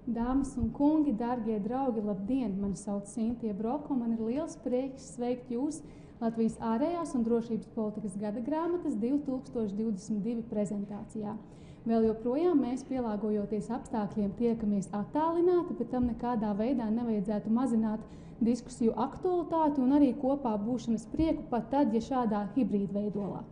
Dāmas un kungi, dārgie draugi, labdien! Mani sauc Sintija Broka, un man ir liels prieks sveikt jūs Latvijas ārējās un drošības politikas gada grāmatas 2022 prezentācijā. Vēl joprojām mēs, pielāgojoties apstākļiem, tiekamies attālināti, bet tam nekādā veidā nevajadzētu mazināt diskusiju aktualitāti un arī kopā būšanas prieku pat tad, ja šādā hibrīdveidolā.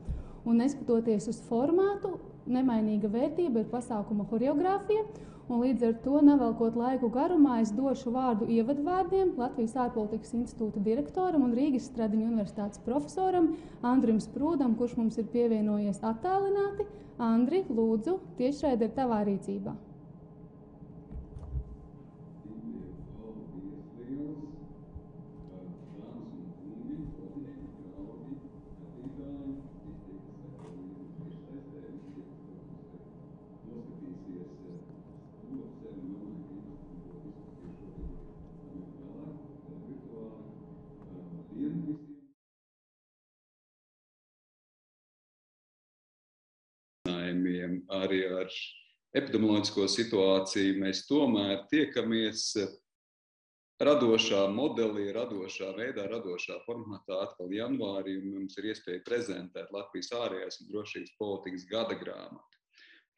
Un neskatoties uz formātu, nemainīga vērtība ir pasākuma horeogrāfija, un līdz ar to, nevelkot laiku garumā, es došu vārdu ievadvārdiem Latvijas ārpolitikas institūta direktoram un Rīgas Stradiņu universitātes profesoram Andrim Sprūdam, kurš mums ir pievienojies attālināti. Andri, lūdzu, tiešraide ir tavā rīcībā. Arī ar epidemioloģisko situāciju mēs tomēr tiekamies radošā modelī, radošā veidā, radošā formātā atkal janvārī, un mums ir iespēja prezentēt Latvijas ārējās un drošības politikas gada grāmatu.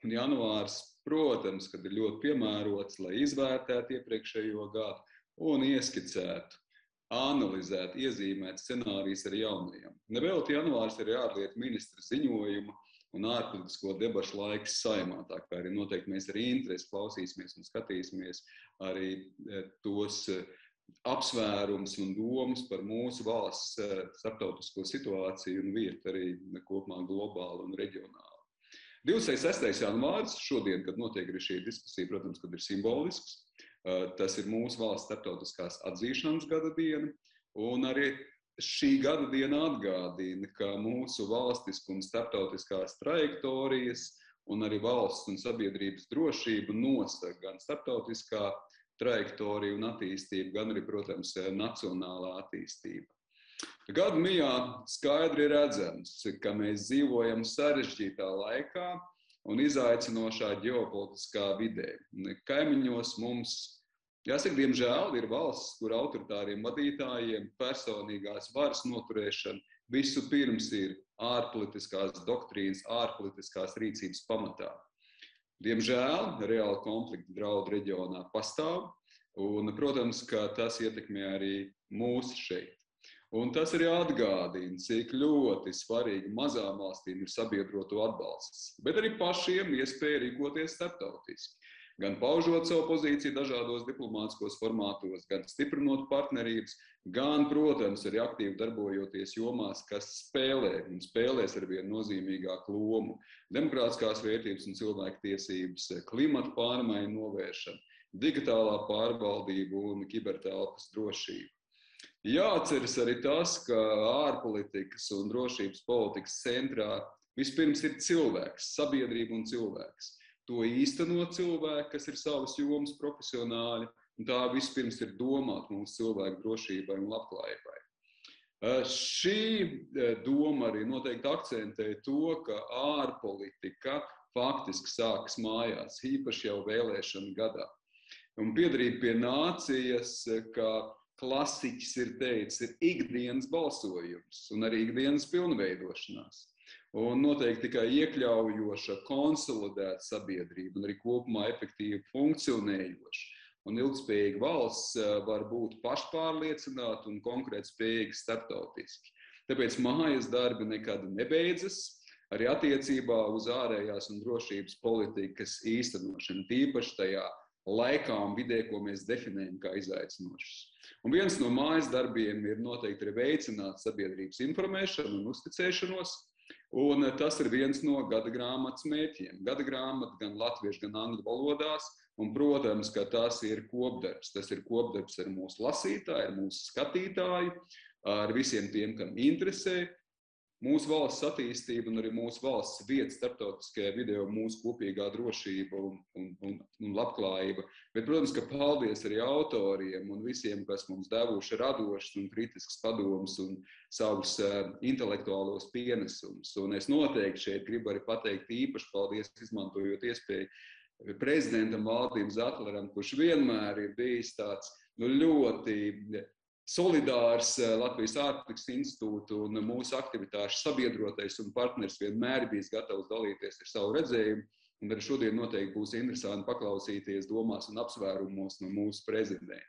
Un janvārs, protams, kad ir ļoti piemērots, lai izvērtētu iepriekšējo gadu un ieskicētu, analizētu, iezīmētu scenārijus ar jaunajiem. Nevelti janvārs ir ārlietu ministra ziņojuma un ārpolitisko debašu laiks Saeimā, tā kā arī noteikti mēs ar interesi klausīsimies un skatīsimies arī tos apsvērums un domas par mūsu valsts starptautisko situāciju un vietu arī kopumā globāli un reģionāli. 26. janvāris, šodien, kad notiek arī šī diskusija, protams, kad ir simbolisks, tas ir mūsu valsts starptautiskās atzīšanas gada diena, un arī šī gada diena atgādina, ka mūsu valstisku un starptautiskās trajektorijas un arī valsts un sabiedrības drošību nosaka gan starptautiskā trajektorija un attīstība, gan arī, protams, nacionālā attīstība. Gadu mijā skaidri redzams, ka mēs dzīvojam sarežģītā laikā un izaicinošā ģeopolitiskā vidē. Kaimiņos mums, jāsaka, diemžēl ir valsts, kur autoritāriem vadītājiem personīgās varas noturēšana visu pirms ir ārpolitiskās doktrīnas, ārpolitiskās rīcības pamatā. Diemžēl reāli konflikti draudu reģionā pastāv, un, protams, ka tas ietekmē arī mūs šeit. Un tas arī atgādina, cik ļoti svarīgi mazām valstīm ir sabiedroto atbalsts, bet arī pašiem iespēja rīkoties starptautiski. Gan paužot savu pozīciju dažādos diplomātiskos formātos, gan stiprinot partnerības, gan, protams, arī aktīvi darbojoties jomās, kas spēlē un spēlēs arvien nozīmīgāku lomu. Demokrātiskās vērtības un cilvēktiesības, klimata pārmaiņu novēršana, digitālā pārvaldība un kibertelpas drošība. Jāatceras arī tas, ka ārpolitikas un drošības politikas centrā vispirms ir cilvēks, sabiedrība un cilvēks. To īsteno cilvēki, kas ir savas jomas profesionāļi, un tā vispirms ir domāt mūsu cilvēku drošībai un labklājībai. Šī doma arī noteikti akcentē to, ka ārpolitika faktiski sākas mājās, īpaši jau vēlēšanu gadā. Un piedarīt pie nācijas, ka klasiķis ir teicis, ir ikdienas balsojums un arī ikdienas pilnveidošanās. Un noteikti tikai iekļaujoša, konsolidēta sabiedrība un arī kopumā efektīvi funkcionējoša un ilgspējīga valsts var būt pašpārliecināta un konkrēti spējīga starptautiski. Tāpēc mājas darbi nekad nebeidzas, arī attiecībā uz ārējās un drošības politikas īstenošanu, tīpaši tajā laikā un vidē, ko mēs definējam kā izaicinošas. Un viens no mājas darbiem ir noteikti arī veicināt sabiedrības informēšanu un uzticēšanos, un tas ir viens no gada grāmatas mērķiem. Gada grāmata gan latviešu, gan angļu valodās, un, protams, ka tas ir kopdarbs. Tas ir kopdarbs ar mūsu lasītāju, ar mūsu skatītāju, ar visiem tiem, kam interesē mūsu valsts attīstība un arī mūsu valsts vieta starptautiskajā vidē, mūsu kopīgā drošība un labklājība. Bet, protams, ka paldies arī autoriem un visiem, kas mums devuši radošas un kritiskas padomus un savus intelektuālos pienesumus. Un es noteikti šeit gribu arī pateikt īpaši paldies, izmantojot iespēju prezidentam Valdim Zatleram, kurš vienmēr ir bijis tāds ļoti solidārs Latvijas ārpolitikas institūtu un mūsu aktivitāšu sabiedrotais un partners, vienmēr bijis gatavs dalīties ar savu redzējumu. Un arī šodien noteikti būs interesanti paklausīties domās un apsvērumos no mūsu prezidenta.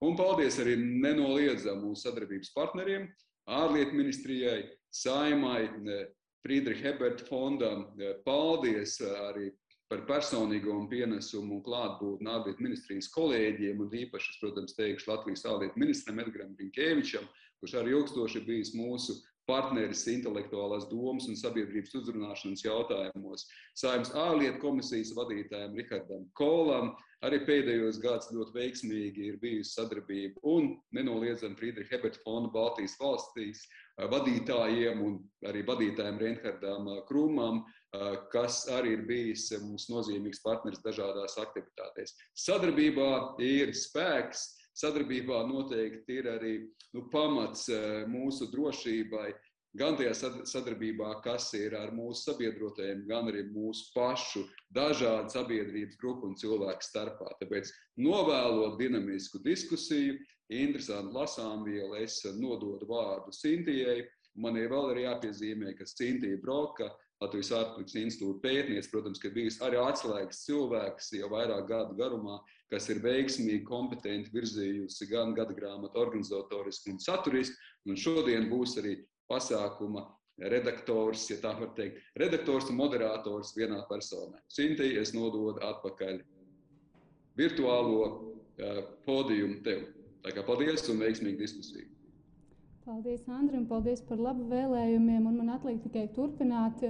Un paldies arī nenoliedzam mūsu sadarbības partneriem, ārlietu ministrijai, Saimai, Friedricha Eberta fondam. Paldies arī par personīgo pienesumu un klātbūtni ārlietu ministrijas kolēģiem, un īpaši, protams, teikšu Latvijas ārlietu ministram Edgaram Rinkēvičam, kurš arī ilgstoši bijis mūsu partneris intelektuālās domas un sabiedrības uzrunāšanas jautājumos, Saeimas ārlietu komisijas vadītājiem Rihardam Kolam, arī pēdējos gads ļoti veiksmīgi ir bijusi sadarbība, un nenoliedzam Friedricha Eberta fonda Baltijas valstīs vadītājiem un arī vadītājiem Reinhardam Krumam, kas arī ir bijis mums nozīmīgs partneris dažādās aktivitātēs. Sadarbībā ir spēks. Sadarbībā noteikti ir arī pamats mūsu drošībai, gan tajā sadarbībā, kas ir ar mūsu sabiedrotajiem, gan arī mūsu pašu dažādu sabiedrības grupu un cilvēku starpā. Tāpēc novēlot dinamisku diskusiju, interesantu lasāmvielu, es nododu vārdu Cintijai. Man vēl ir jāpiezīmē, ka Cintija Broka, Latvijas ārpolitikas institūta pētniece, protams, ka bijusi arī atslēgas cilvēks jau vairāk gadu garumā, kas ir veiksmīgi, kompetenti virzījusi gan gadagrāmatu organizatoriski un saturiski, un šodien būs arī pasākuma redaktors, ja tā var teikt, redaktors un moderators vienā personā. Cintija, es nododu atpakaļ virtuālo podiumu tev. Tā kā paldies un veiksmīgu diskusiju. Paldies, Andri, un paldies par labu vēlējumiem. Un man atliek tikai turpināt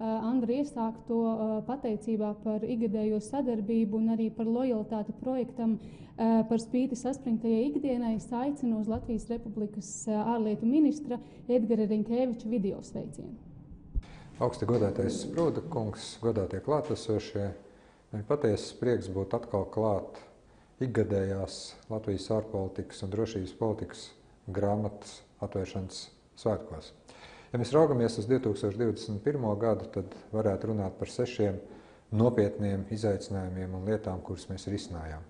Andri iesākto pateicībā par ikgadējo sadarbību un arī par lojalitāti projektam par spīti saspringtajai ikdienai. Es aicinu uz Latvijas Republikas ārlietu ministra Edgara Rinkēviča video sveicienu. Augsti godātais Sprūda kungs, godātie klātesošie, man patiesas prieks būt atkal klāt ikgadējās Latvijas ārpolitikas un drošības politikas grāmatas atvēršanas svētkos. Ja mēs raugamies uz 2021. gadu, tad varētu runāt par 6 nopietniem izaicinājumiem un lietām, kuras mēs risinājām.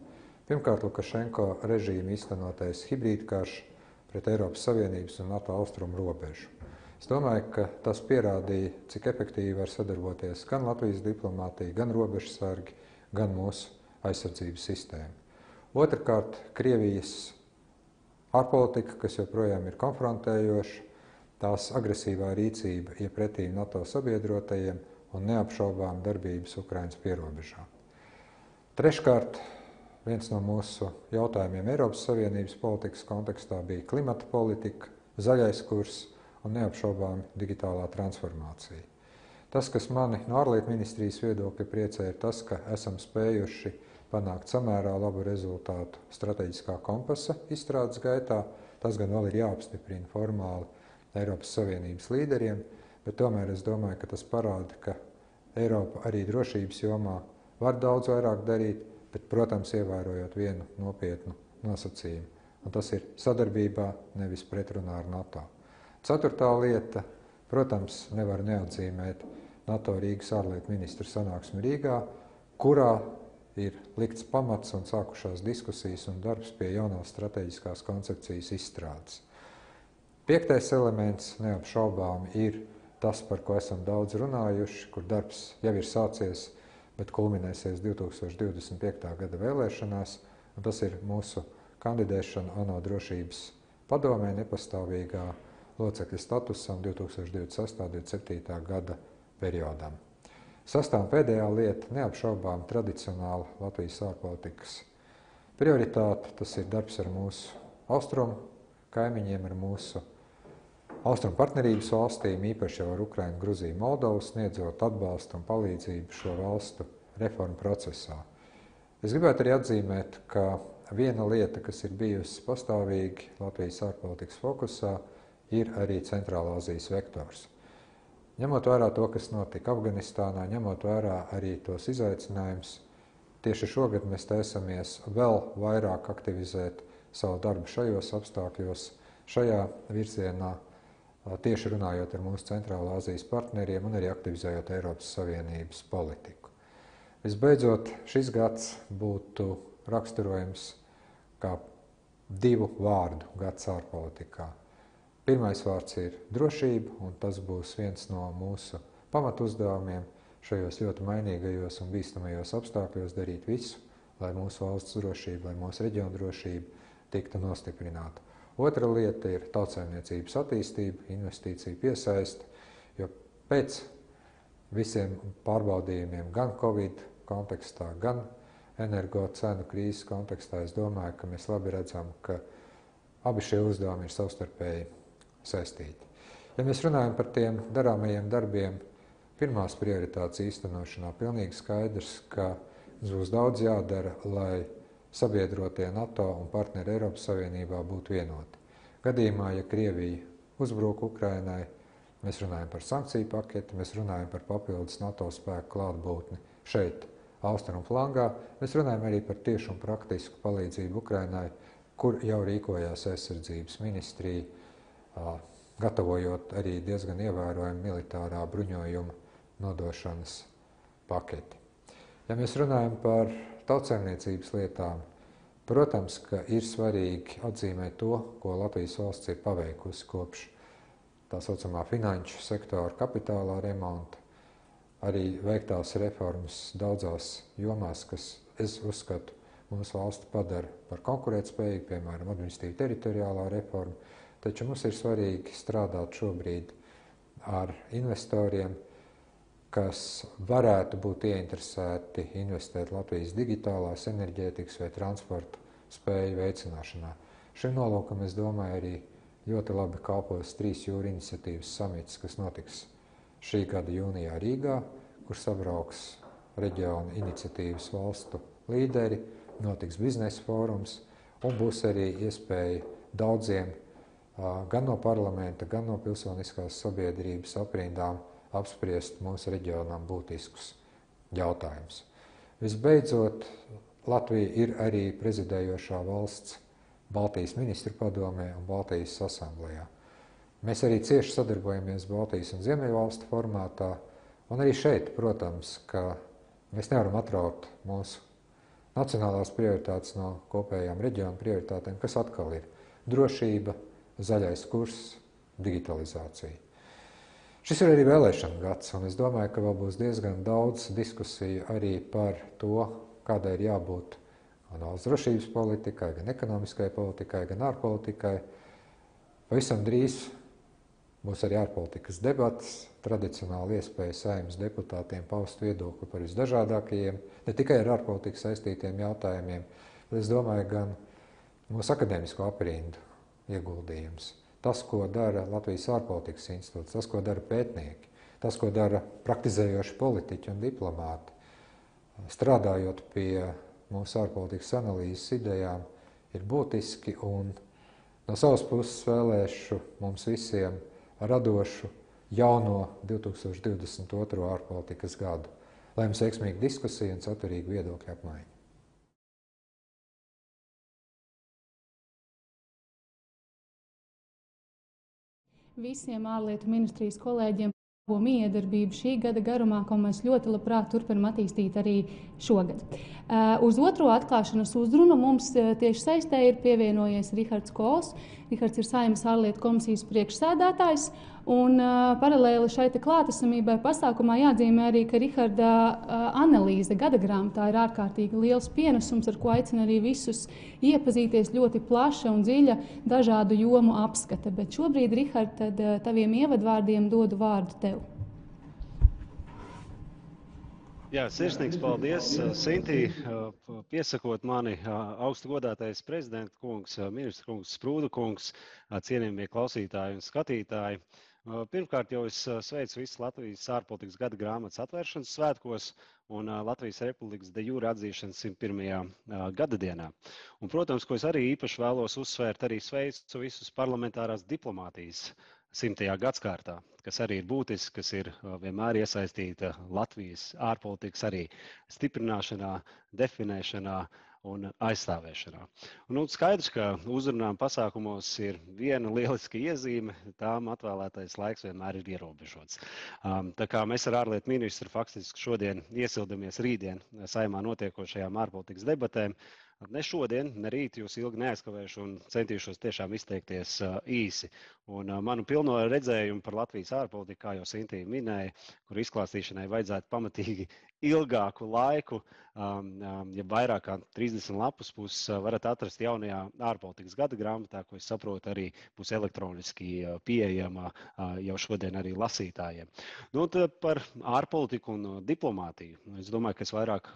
Pirmkārt, Lukašenko režīma īstenotais hibrīdkarš pret Eiropas Savienības un NATO austrumu robežu. Es domāju, ka tas pierādīja, cik efektīvi var sadarboties gan Latvijas diplomātija, gan robežsargi, gan mūsu aizsardzības sistēma. Otrkārt, Krievijas ārpolitika, kas joprojām ir konfrontējoša, tās agresīvā rīcība iepretī NATO sabiedrotajiem un neapšaubām darbības Ukrainas pierobežā. Treškārt, viens no mūsu jautājumiem Eiropas Savienības politikas kontekstā bija klimata politika, zaļais kurs un neapšaubām digitālā transformācija. Tas, kas mani no ārlietu ministrijas viedokļa priecē, ir tas, ka esam spējuši panākt samērā labu rezultātu strateģiskā kompasa izstrādes gaitā. Tas gan vēl ir jāapstiprina formāli Eiropas Savienības līderiem, bet tomēr es domāju, ka tas parāda, ka Eiropa arī drošības jomā var daudz vairāk darīt, bet, protams, ievērojot vienu nopietnu nosacījumu. Un tas ir sadarbībā, nevis pretrunā ar NATO. Ceturtā lieta, protams, nevar neatzīmēt NATO Rīgas ārlietu ministru sanāksmi Rīgā, kurā ir likts pamats un sākušās diskusijas un darbs pie jaunās strateģiskās koncepcijas izstrādes. 5. elements neapšaubām ir tas, par ko esam daudz runājuši, kur darbs jau ir sācies, bet kulminēsies 2025. gada vēlēšanās, un tas ir mūsu kandidēšana ANO drošības padomē nepastāvīgā locekļa statusam 2026. un 2027. gada periodam. Sastā un pēdējā lieta neapšaubām tradicionāla Latvijas ārpolitikas prioritāte. Tas ir darbs ar mūsu austrumu kaimiņiem, ar mūsu austrumu partnerības valstīm, īpaši jau ar Ukrainu, Gruziju, Moldovu, sniedzot atbalstu un palīdzību šo valstu reformu procesā. Es gribētu arī atzīmēt, ka viena lieta, kas ir bijusi pastāvīgi Latvijas ārpolitikas fokusā, ir arī Centrālā Azijas vektors. Ņemot vērā to, kas notika Afganistānā, ņemot vērā arī tos izaicinājumus, tieši šogad mēs taisamies vēl vairāk aktivizēt savu darbu šajos apstākļos, šajā virzienā, tieši runājot ar mūsu Centrālā Azijas partneriem un arī aktivizējot Eiropas Savienības politiku. Visbeidzot, šis gads būtu raksturojams kā 2 vārdu gads ārpolitikā. Pirmais vārds ir drošība, un tas būs viens no mūsu pamatuzdevumiem šajos ļoti mainīgajos un bīstamajos apstākļos darīt visu, lai mūsu valsts drošība, lai mūsu reģiona drošība tiktu nostiprināta. Otra lieta ir tautsaimniecības attīstība, investīcija piesaiste, jo pēc visiem pārbaudījumiem gan Covid kontekstā, gan energo cenu krīzes kontekstā, es domāju, ka mēs labi redzam, ka abi šie uzdevumi ir savstarpēji saistīti. Ja mēs runājam par tiem darāmajiem darbiem, pirmās prioritātes īstenošanā, pilnīgi skaidrs, ka mums būs daudz jādara, lai sabiedrotie NATO un partneri Eiropas Savienībā būtu vienoti. Gadījumā, ja Krievija uzbruk Ukrainai, mēs runājam par sankciju paketi, mēs runājam par papildus NATO spēku klātbūtni šeit, austrumu flangā, mēs runājam arī par tiešu un praktisku palīdzību Ukrainai, kur jau rīkojās aizsardzības ministrija, gatavojot arī diezgan ievērojumu militārā bruņojuma nodošanas paketi. Ja mēs runājam par tautsaimniecības lietām, protams, ka ir svarīgi atzīmēt to, ko Latvijas valsts ir paveikusi kopš tā saucamā finanšu sektora kapitālā remonta, arī veiktās reformas daudzās jomās, kas, es uzskatu, mūsu valsti padara par konkurētspējīgu, piemēram, administratīva teritoriālā reforma, taču mums ir svarīgi strādāt šobrīd ar investoriem, kas varētu būt ieinteresēti investēt Latvijas digitālās enerģētikas vai transporta spēju veicināšanā. Šim nolūkam, es domāju, arī ļoti labi kalpos 3 jūru iniciatīvas samits, kas notiks šī gada jūnijā Rīgā, kur sabrauks reģiona iniciatīvas valstu līderi, notiks biznesa fórums un būs arī iespēja daudziem gan no parlamenta, gan no pilsoniskās sabiedrības aprindām apspriest mūsu reģionām būtiskus jautājumus. Visbeidzot, Latvija ir arī prezidējošā valsts Baltijas ministru padomē un Baltijas asamblējā. Mēs arī cieši sadarbojamies Baltijas un Ziemeļvalstu formātā, un arī šeit, protams, ka mēs nevaram atraut mūsu nacionālās prioritātes no kopējām reģionu prioritātēm, kas atkal ir drošība, zaļais kurs, digitalizācija. Šis ir arī vēlēšana gads, un es domāju, ka vēl būs diezgan daudz diskusiju arī par to, kādai ir jābūt gan valsts drošības politikai, gan ekonomiskai politikai, gan ārpolitikai. Pavisam drīz būs arī ārpolitikas debates, tradicionāli iespēja Saeimas deputātiem paust viedokli par visdažādākajiem, ne tikai ar ārpolitiku saistītiem jautājumiem, bet es domāju, gan mūsu akadēmisko aprindu ieguldījums. Tas, ko dara Latvijas ārpolitikas institūts, tas, ko dara pētnieki, tas, ko dara praktizējoši politiķi un diplomāti, strādājot pie mūsu ārpolitikas analīzes idejām, ir būtiski, un no savas puses vēlēšu mums visiem radošu jauno 2022. Ārpolitikas gadu, lai mums veiksmīga diskusija un saturīga viedokļa apmaiņa. Visiem ārlietu ministrijas kolēģiem miedarbību šī gada garumā, ko mēs ļoti labprāt turpinam attīstīt arī šogad. Uz otro atklāšanas uzrunu mums tieši saistē ir pievienojies Rihards Kols. Rihards ir Saeimas ārlietu komisijas priekšsēdētājs, un paralēli šai klātesamībai pasākumā jāatzīmē arī, ka Riharda analīze gada grāmatā ir ārkārtīgi liels pienesums, ar ko aicina arī visus iepazīties, ļoti plaša un dziļa dažādu jomu apskata. Bet šobrīd, Rihard, tad taviem ievadvārdiem dodu vārdu tev. Jā, sirsnīgs paldies, Sintī, piesakot mani augstu godātais prezidenta kungs, ministra kungs, Sprūda kungs, cienījamie klausītāji un skatītāji. Pirmkārt jau es sveicu visus Latvijas ārpolitikas gada grāmatas atvēršanas svētkos un Latvijas Republikas de jure atzīšanas 101. Gada dienā. Un, protams, ko es arī īpaši vēlos uzsvērt, arī sveicu visus parlamentārās diplomātijas 100. gadskārtā, kas arī ir būtiski, kas ir vienmēr iesaistīta Latvijas ārpolitikas arī stiprināšanā, definēšanā un aizstāvēšanā. Un skaidrs, ka uzrunām pasākumos ir viena lieliska iezīme, tām atvēlētais laiks vienmēr ir ierobežots. Tā kā mēs ar ārlietu ministru faktiski šodien iesildamies rītdien Saeimā notiekošajām ārpolitikas debatēm, ne šodien, ne rīt jūs ilgi neaizkavēšu un centīšos tiešām izteikties īsi. Un manu pilno redzējumu par Latvijas ārpolitiku, kā jau Sintī minēja, kur izklāstīšanai vajadzētu pamatīgi ilgāku laiku, ja vairāk kā 30 lapus puses varat atrast jaunajā ārpolitikas gada grāmatā, ko es saprotu arī būs elektroniski pieejama jau šodien arī lasītājiem. Nu, par ārpolitiku un diplomātiju. Es domāju, ka es vairāk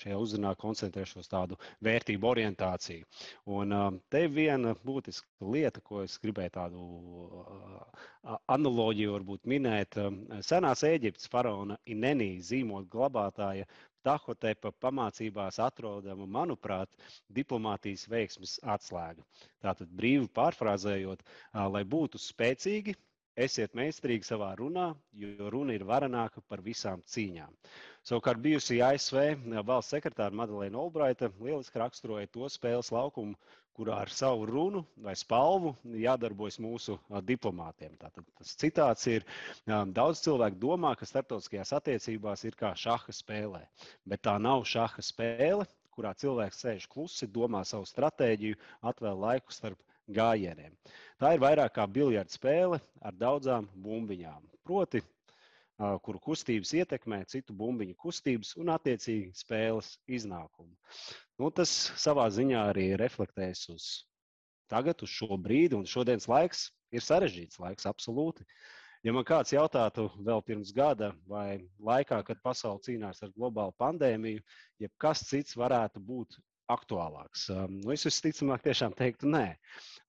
šajā uzrunā koncentrēšos tādu vērtību orientāciju. Un te viena būtiska lieta, ko es gribēju tādu analoģiju varbūt minēt. Senās Ēģiptes faraona Inenī zīmola glabātāja Tahotepa pamācībās atrodama, manuprāt, diplomātijas veiksmes atslēga. Tātad brīvi pārfrāzējot, lai būtu spēcīgi, esiet meistarīgi savā runā, jo runa ir varenāka par visām cīņām. Savukārt bijusī ASV valsts sekretāra Madeleina Olbraita lieliski raksturoja to spēles laukumu, kurā ar savu runu vai spalvu jādarbojas mūsu diplomātiem. Tātad tas citāts ir, daudz cilvēku domā, ka starptautiskajās attiecībās ir kā šaha spēlē, bet tā nav šaha spēle, kurā cilvēks sēž klusi, domā savu stratēģiju, atvēl laiku starp gājieniem. Tā ir vairāk kā biljarda spēle ar daudzām bumbiņām, proti, kuru kustības ietekmē citu bumbiņu kustības un attiecīgi spēles iznākumu. Nu, tas savā ziņā arī reflektēs uz tagad, uz šo brīdi, un šodienas laiks ir sarežģīts laiks, absolūti. Ja man kāds jautātu vēl pirms gada vai laikā, kad pasaule cīnās ar globālu pandēmiju, ja kas cits varētu būt aktuālāks, nu, es visticamāk tiešām teiktu nē,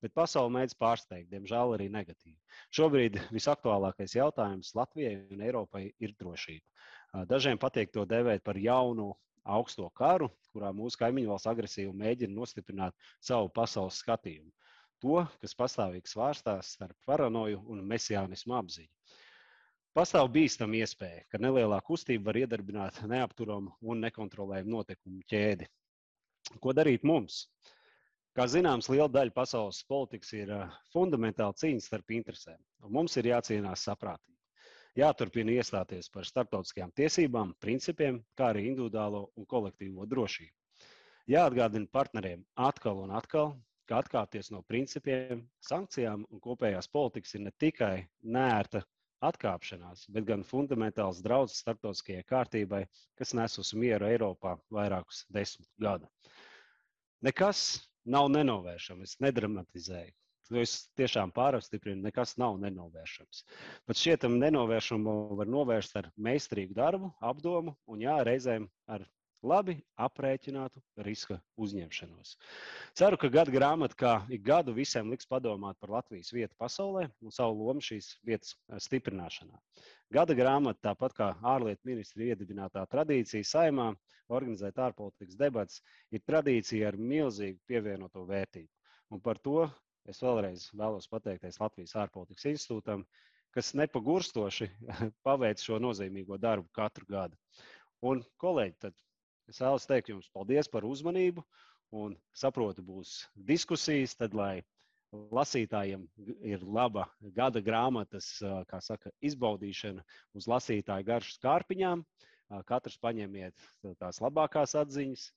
bet pasaule mēdz pārsteigt, diemžēl arī negatīvi. Šobrīd visaktuālākais jautājums Latvijai un Eiropai ir drošība. Dažiem patīk to dēvēt par jaunu augsto karu, kurā mūsu kaimiņu valsts agresīvi mēģina nostiprināt savu pasaules skatījumu. To, kas pastāvīgi svārstās starp paranoju un mesiānismu apziņu. Pastāv bīstama iespēja, ka nelielā kustība var iedarbināt neapturamu un nekontrolējumu notikumu ķēdi. Ko darīt mums? Kā zināms, liela daļa pasaules politikas ir fundamentāla cīņa starp interesēm, un mums ir jācīnās saprātīgi. Jāturpina iestāties par starptautiskajām tiesībām, principiem, kā arī individuālo un kolektīvo drošību. Jāatgādina partneriem atkal un atkal, ka atkāpties no principiem, sankcijām un kopējās politikas ir ne tikai neērta atkāpšanās, bet gan fundamentāls draudz starptautiskajai kārtībai, kas nes uz mieru Eiropā vairākus 10 gadu. Nekas nav nenovēršams, es nedramatizēju. Es tiešām pārapstiprinu, nekas nav nenovēršams. Pat šietam nenovēršamu var novērst ar meistarīgu darbu, apdomu un reizēm ar labi aprēķinātu riska uzņemšanos. Ceru, ka gada grāmata kā ik gadu visiem liks padomāt par Latvijas vietu pasaulē un savu lomu šīs vietas stiprināšanā. Gada grāmata, tāpat kā ārlietu ministra iedibinātā tradīcija Saeimā, organizēt ārpolitikas debates, ir tradīcija ar milzīgu pievienoto vērtību. Un par to es vēlreiz vēlos pateikties Latvijas ārpolitikas institūtam, kas nepagurstoši paveic šo nozīmīgo darbu katru gadu. Un, kolēģi, tad es vēlos teikt jums paldies par uzmanību un saprotu būs diskusijas, tad, lai lasītājiem ir laba gada grāmatas, kā saka, izbaudīšana uz lasītāju garšu skārpiņām. Katrs paņemiet tās labākās atziņas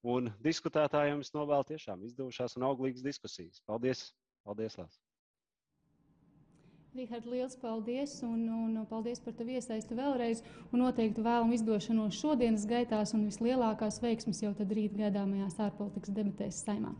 un diskutētājiem es novēlu tiešām izdevušās un auglīgas diskusijas. Paldies! Paldies, Lās! Rihard, liels paldies un paldies par tavu iesaisti vēlreiz un noteikti vēlam izdošanos šodienas gaitās un vislielākās veiksmes jau tad rīt gaidāmajās ārpolitikas debatēs Saeimā.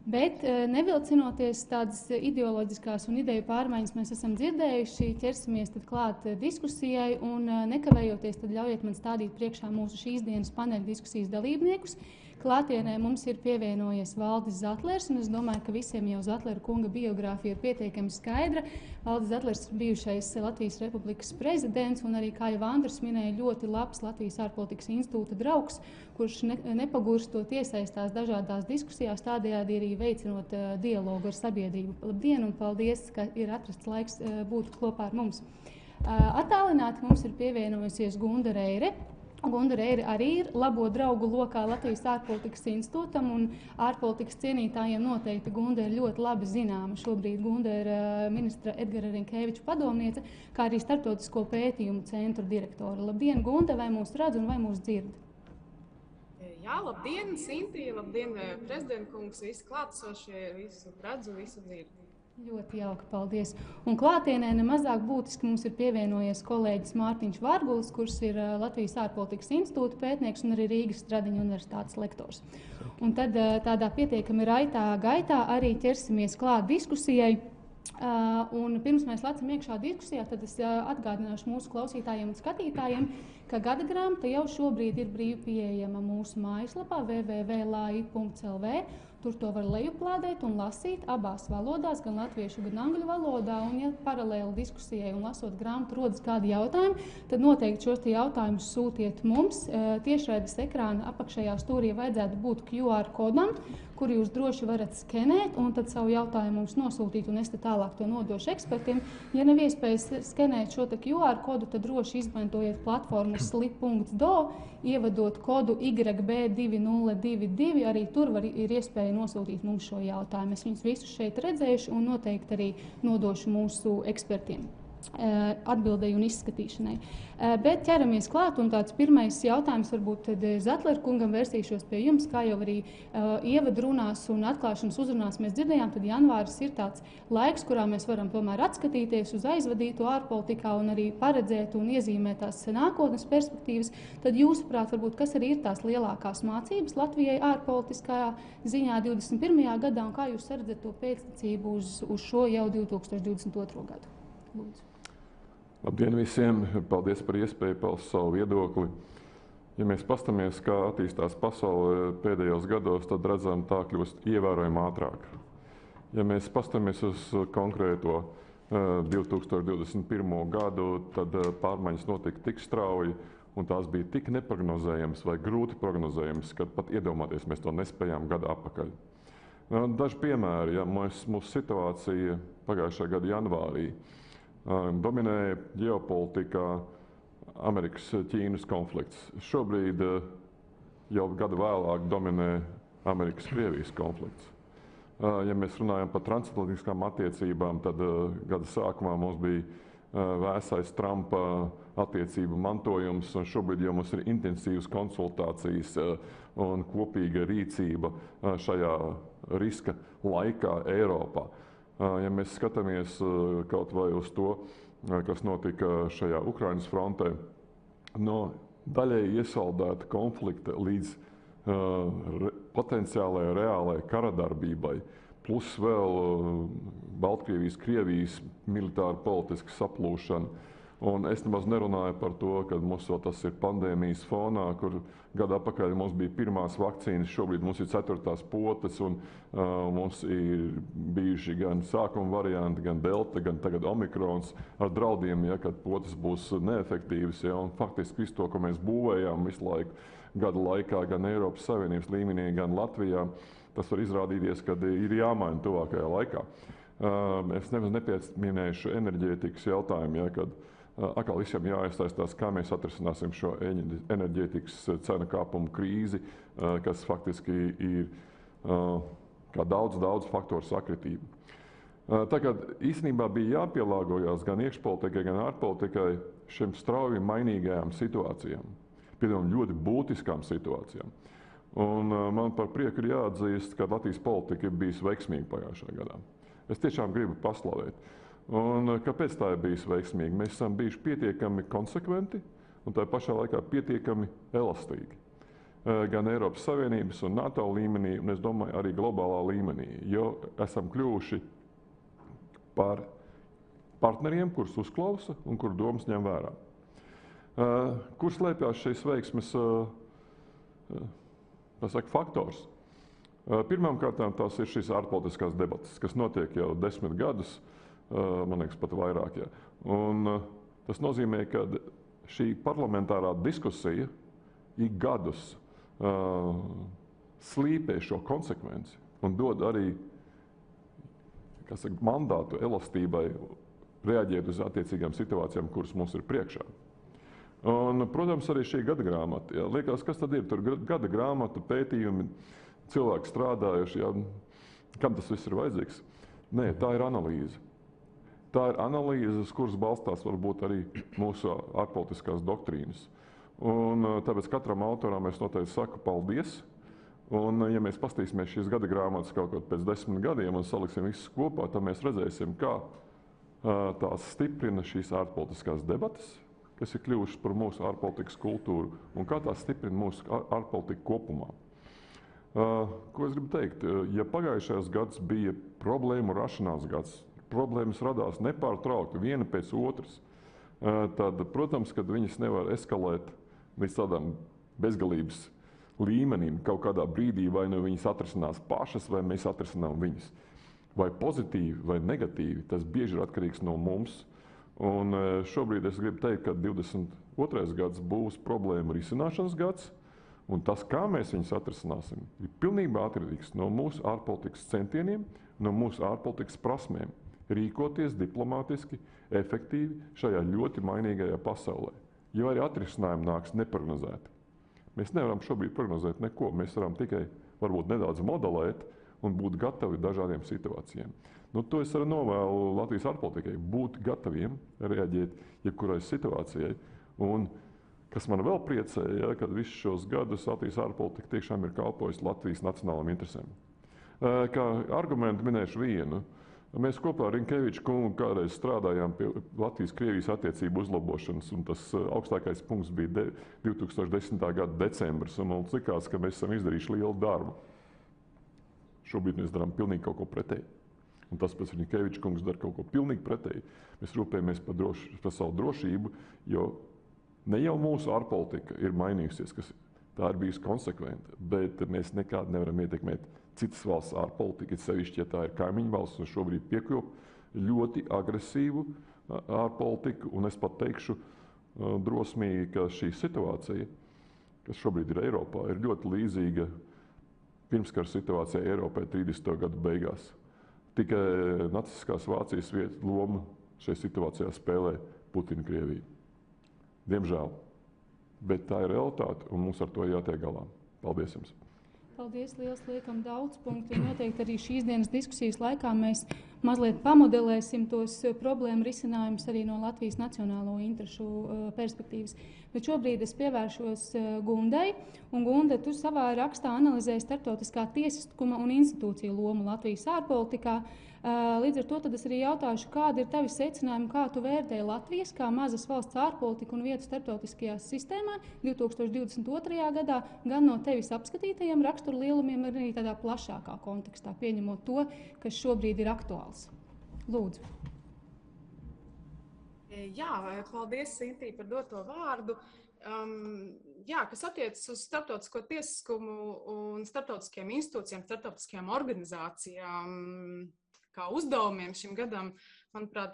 Bet nevilcinoties tādas ideoloģiskās un ideju pārmaiņas mēs esam dzirdējuši, ķersimies tad klāt diskusijai un nekavējoties tad ļaujiet man stādīt priekšā mūsu šīs dienas paneļa diskusijas dalībniekus. Klātienē mums ir pievienojies Valdis Zatlers, un es domāju, ka visiem jau Zatlera kunga biogrāfija ir pietiekami skaidra. Valdis Zatlers ir bijušais Latvijas Republikas prezidents, un arī, kā jau Andris minēja, ļoti labs Latvijas ārpolitikas institūta draugs, kurš nepagurstot iesaistās dažādās diskusijās, tādējādi arī veicinot dialogu ar sabiedrību. Labdien un paldies, ka ir atrasts laiks būt kopā ar mums. Attālināti mums ir pievienojusies Gunda Reire. Gundare arī ir labo draugu lokā Latvijas ārpolitikas institūtam, un ārpolitikas cienītājiem noteikti Gunde ir ļoti labi zināma. Šobrīd Gunde ir ministra Edgara Rinkēviča padomniece, kā arī Startautisko pētījumu centru direktore. Labdien, Gunde, vai mūs redz un vai mūs dzird? Jā, labdien, Sintī, labdien, prezidentkungs, visi klātesošie, visu redzu, visu dzirdu. Ļoti jauki, paldies. Un klātienē nemazāk būtiski mums ir pievienojies kolēģis Mārtiņš Vargulis, kurš ir Latvijas ārpolitikas institūta pētnieks un arī Rīgas Stradiņa universitātes lektors. Un tad tādā pietiekami raitā gaitā arī ķersimies klāt diskusijai. Un pirms mēs lecam iekšā diskusijā, tad es atgādināšu mūsu klausītājiem un skatītājiem, ka gada grāmata jau šobrīd ir brīvi pieejama mūsu mājaslapā www.lai.lv. Tur to var lejuplādēt un lasīt abās valodās, gan latviešu, gan angļu valodā. Un, ja paralēli diskusijai un lasot grāmatu rodas kādi jautājumi, tad noteikti šos jautājumus sūtiet mums. Tiešraides ekrāna apakšējā stūrī vajadzētu būt QR kodam, kuru jūs droši varat skenēt un tad savu jautājumu mums nosūtīt, un es te tālāk to nodošu ekspertiem. Ja nav iespējas skenēt šo QR kodu, tad droši izmantojiet platformu slip.do, ievadot kodu YB2022, arī tur ir iespēja nosūtīt mums šo jautājumu. Es viņus visus šeit redzēšu un noteikti arī nodošu mūsu ekspertiem atbildēju un izskatīšanai. Bet ķeramies klāt, un tāds pirmais jautājums varbūt tad Zatler kungam vērsīšos pie jums, kā jau arī ievadrunās un atklāšanas uzrunās mēs dzirdējām, tad janvāris ir tāds laiks, kurā mēs varam tomēr atskatīties uz aizvadīto ārpolitikā un arī paredzēt un iezīmēt tās nākotnes perspektīvas. Tad jūsuprāt, varbūt, kas arī ir tās lielākās mācības Latvijai ārpolitiskajā ziņā 21. gadā, un kā jūs redzat to pēctecību uz šo jau 2022. gadu? Lūdzu. Labdien visiem! Paldies par iespēju paust savu viedokli. Ja mēs pastamies, kā attīstās pasaule pēdējos gados, tad redzam, tā kļūst ievērojami ātrāk. Ja mēs pastamies uz konkrēto 2021. gadu, tad pārmaiņas notika tik strauji, un tās bija tik neprognozējamas vai grūti prognozējamas, ka pat iedomāties mēs to nespējām gadu atpakaļ. Daži piemēri, ja mūsu situācija pagājušā gada janvārī dominēja ģeopolitikā Amerikas-Ķīnas konflikts. Šobrīd jau gadu vēlāk dominē Amerikas-Krievijas konflikts. Ja mēs runājam par transatlantiskām attiecībām, tad gada sākumā mums bija vēsais Trumpa attiecību mantojums, un šobrīd jau mums ir intensīvas konsultācijas un kopīga rīcība šajā riska laikā Eiropā. Ja mēs skatāmies kaut vai uz to, kas notika šajā Ukrainas frontē, no daļēji iesaldēta konflikta līdz potenciālajai reālajai karadarbībai, plus vēl Baltkrievijas, Krievijas militāra politiska saplūšana. Un es nemaz nerunāju par to, ka mums vēl tas ir pandēmijas fonā, kur gadu atpakaļ mums bija pirmās vakcīnas, šobrīd mums ir 4. potes, un mums ir bijuši gan sākuma varianti, gan delta, gan tagad omikrons ar draudiem, ja, kad potes būs neefektīvas. Ja, un faktiski visu to, ko mēs būvējām visu laiku gadu laikā, gan Eiropas Savienības līmenī, gan Latvijā, tas var izrādīties, ka ir jāmaina tuvākajā laikā. Es nemaz nepieminēšu enerģētikas jautājumu, ja, kad atkal visiem jāiesaistās, kā mēs atrisināsim šo enerģētikas cenu kāpumu krīzi, kas faktiski ir kā daudz faktoru sakritība. Tagad īstenībā bija jāpielāgojas gan iekšpolitikai, gan ārpolitikai šiem strauji mainīgajām situācijām, piemēram, ļoti būtiskām situācijām. Un man par prieku ir jāatzīst, ka Latvijas politika ir bijusi veiksmīga pagājušajā gadā. Es tiešām gribu paslavēt. Un kāpēc tā ir bijusi veiksmīga? Mēs esam bijuši pietiekami konsekventi un tā pašā laikā pietiekami elastīgi. Gan Eiropas Savienības un NATO līmenī, un es domāju arī globālā līmenī, jo esam kļuvuši par partneriem, kurus uzklausa un kuru domas ņem vērā. Kur slēpjas šīs veiksmes faktors? Pirmkārt, tās ir šīs ārpolitiskās debates, kas notiek jau 10 gadus, man liekas, pat vairāk. Ja. Un tas nozīmē, ka šī parlamentārā diskusija ik gadus slīpē šo konsekvenci un dod arī mandātu elastībai reaģēt uz attiecīgām situācijām, kuras mums ir priekšā. Un, protams, arī šī gada grāmata. Jā. Liekas, kas tad ir? Tur gada grāmata, pētījumi, cilvēki strādājuši. Jā. Kam tas viss ir vajadzīgs? Nē, tā ir analīze. Tā ir analīze, uz kuras balstās varbūt arī mūsu ārpolitiskās doktrīnas. Un tāpēc katram autoram es noteikti saku paldies. Un, ja mēs paskatīsimies šīs gada grāmatas kaut kaut pēc 10 gadiem un saliksim visus kopā, tad mēs redzēsim, kā tās stiprina šīs ārpolitiskās debatas, kas ir kļuvušas par mūsu ārpolitikas kultūru, un kā tās stiprina mūsu ārpolitiku kopumā. Ko es gribu teikt? Ja pagājušajās gads bija problēmu rašanās gads, problēmas radās nepārtraukti viena pēc otras, tad, protams, kad viņas nevar eskalēt līdz tādām bezgalības līmenim kaut kādā brīdī, vai nu viņas atrisinās pašas, vai mēs atrisinām viņas. Vai pozitīvi, vai negatīvi, tas bieži ir atkarīgs no mums. Un šobrīd es gribu teikt, ka 22. gads būs problēmu risināšanas gads, un tas, kā mēs viņus atrisināsim, ir pilnībā atkarīgs no mūsu ārpolitikas centieniem, no mūsu ārpolitikas prasmēm. Rīkoties diplomātiski, efektīvi šajā ļoti mainīgajā pasaulē. Jo arī atrisinājumi nāks neprognozēti. Mēs nevaram šobrīd prognozēt neko. Mēs varam tikai varbūt nedaudz modelēt un būt gatavi dažādiem situācijām. Nu, to es arī novēlu Latvijas ārpolitikai, būt gataviem reaģēt jebkurai situācijai. Un, kas man vēl priecēja, ja, kad visus šos gadus Latvijas ārpolitika tiešām ir kalpojusi Latvijas nacionālām interesēm. Kā argumentu minēšu vienu. Mēs kopā ar Rinkeviču kungu kādreiz strādājām pie Latvijas-Krievijas attiecību uzlabošanas, un tas augstākais punkts bija 2010. gada decembris, un mums likās, ka mēs esam izdarījuši lielu darbu. Šobrīd mēs darām pilnīgi kaut ko pretēji. Un tas pēc Rinkeviča kungs dara kaut ko pilnīgi pretēji. Mēs rūpējamies par savu drošību, jo ne jau mūsu ārpolitika ir mainījusies, kas tā ir bijusi konsekventa, bet mēs nekādi nevaram ietekmēt citas valsts ārpolitika, sevišķi, ja tā ir kaimiņu valsts, un šobrīd piekļuv ļoti agresīvu ārpolitiku, un es pat teikšu drosmīgi, ka šī situācija, kas šobrīd ir Eiropā, ir ļoti līdzīga pirmskara situācijai Eiropai 30. gadu beigās. Tikai nacistiskās Vācijas lomu šajā situācijā spēlē Putina Krievija. Diemžēl. Bet tā ir realitāte, un mums ar to jātiek galā. Paldies jums! Paldies, liels, liekam daudz punktu. Noteikti arī šīs dienas diskusijas laikā mēs mazliet pamodelēsim tos problēmu risinājumus arī no Latvijas nacionālo interešu perspektīvas. Bet šobrīd es pievēršos Gundai, un Gunda, tu savā rakstā analizēji starptautiskā tiesiskuma un institūciju lomu Latvijas ārpolitikā. Līdz ar to tad es arī jautāšu, kādi ir tavi secinājumi, kā tu vērtēji Latvijas kā mazas valsts ārpolitiku un vietu starptautiskajā sistēmā 2022. gadā, gan no tevis apskatītajiem raksturu lielumiem, arī tādā plašākā kontekstā, pieņemot to, kas šobrīd ir aktuāls. Lūdzu. Jā, paldies, Sintī, par doto vārdu. Kas attiecas uz starptautisko tiesiskumu un starptautiskajām institūcijām, starptautiskajām organizācijām, kā uzdevumiem šim gadam, manuprāt,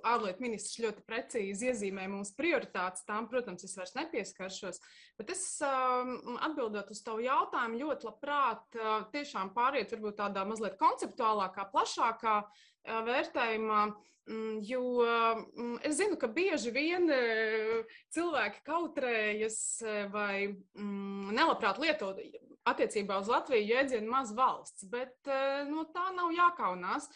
ārlietu ministrs ļoti precīzi iezīmē mūsu prioritātes. Tām, protams, es vairs nepieskaršos, bet es atbildot uz tavu jautājumu ļoti labprāt tiešām pāriet varbūt tādā mazliet konceptuālākā, plašākā vērtējumā, jo es zinu, ka bieži vien cilvēki kautrējas vai nelabprāt lietot attiecībā uz Latviju jēdzienu maz valsts, bet no tā nav jākaunās.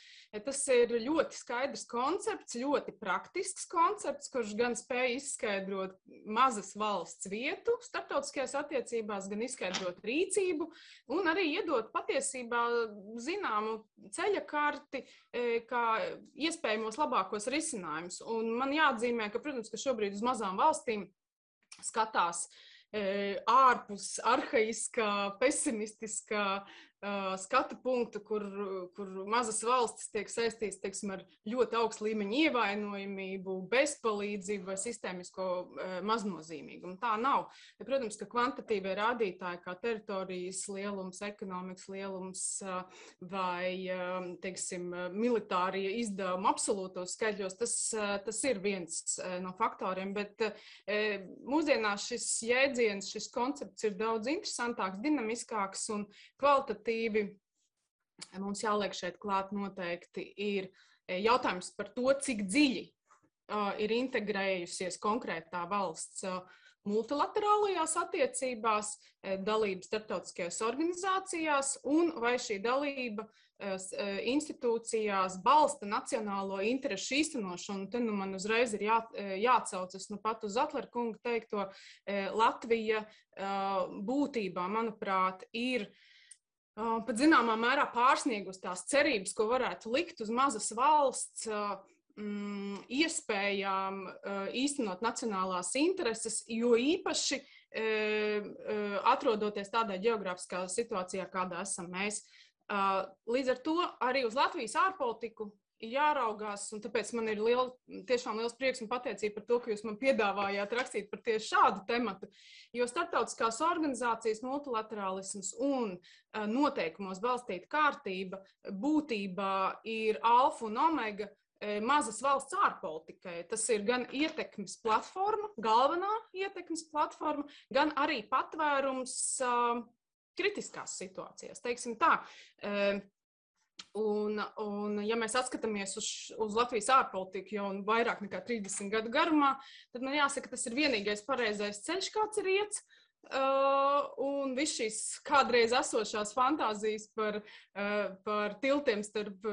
Tas ir ļoti skaidrs koncepts, ļoti praktisks koncepts, kurš gan spēj izskaidrot mazas valsts vietu starptautiskajās attiecībās, gan izskaidrot rīcību un arī iedot patiesībā zināmu ceļakarti, kā iespējamos labākos risinājumus. Un man jāatzīmē, ka, protams, ka šobrīd uz mazām valstīm skatās ārpus arhaiskā, pesimistiskā skatu punktu, kur mazas valstis tiek saistīts, teiksim, ar ļoti augstu līmeņu ievainojamību, bezpalīdzību vai sistēmisko maznozīmīgumu. Tā nav. Protams, ka kvantitīvie rādītāji kā teritorijas lielums, ekonomikas lielums vai, teiksim, militārie izdevumi absolūtos skaitļos, tas ir viens no faktoriem, bet mūsdienās šis jēdziens, šis koncepts ir daudz interesantāks, dinamiskāks un kvalitatīvi. Mums jāliek šeit klāt noteikti ir jautājums par to, cik dziļi ir integrējusies konkrētā valsts multilaterālajās attiecībās, dalība starptautiskajās organizācijās, un vai šī dalība institūcijās balsta nacionālo interešu īstenošanu. Te man uzreiz ir jāatcaucas pat uz Atlera kunga teikto. Latvija būtībā, manuprāt, ir pat zināmā mērā pārsniegus tās cerības, ko varētu likt uz mazas valsts iespējām īstenot nacionālās intereses, jo īpaši atrodoties tādā ģeogrāfiskā situācijā, kādā esam mēs. Līdz ar to arī uz Latvijas ārpolitiku ir jāraugās, un tāpēc man ir tiešām liels prieks un pateicība par to, ka jūs man piedāvājāt rakstīt par tieši šādu tematu, jo starptautiskās organizācijas multilaterālisms un noteikumos balstīta kārtība būtībā ir alfa un omega mazas valsts ārpolitikai. Tas ir gan ietekmes platforma, galvenā ietekmes platforma, gan arī patvērums kritiskās situācijās, teiksim tā. Un ja mēs atskatāmies uz Latvijas ārpolitiku jau vairāk nekā 30 gadu garumā, tad man jāsaka, tas ir vienīgais pareizais ceļš, kāds ir iets. Un viss šīs kādreiz esošās fantāzijas par tiltiem starp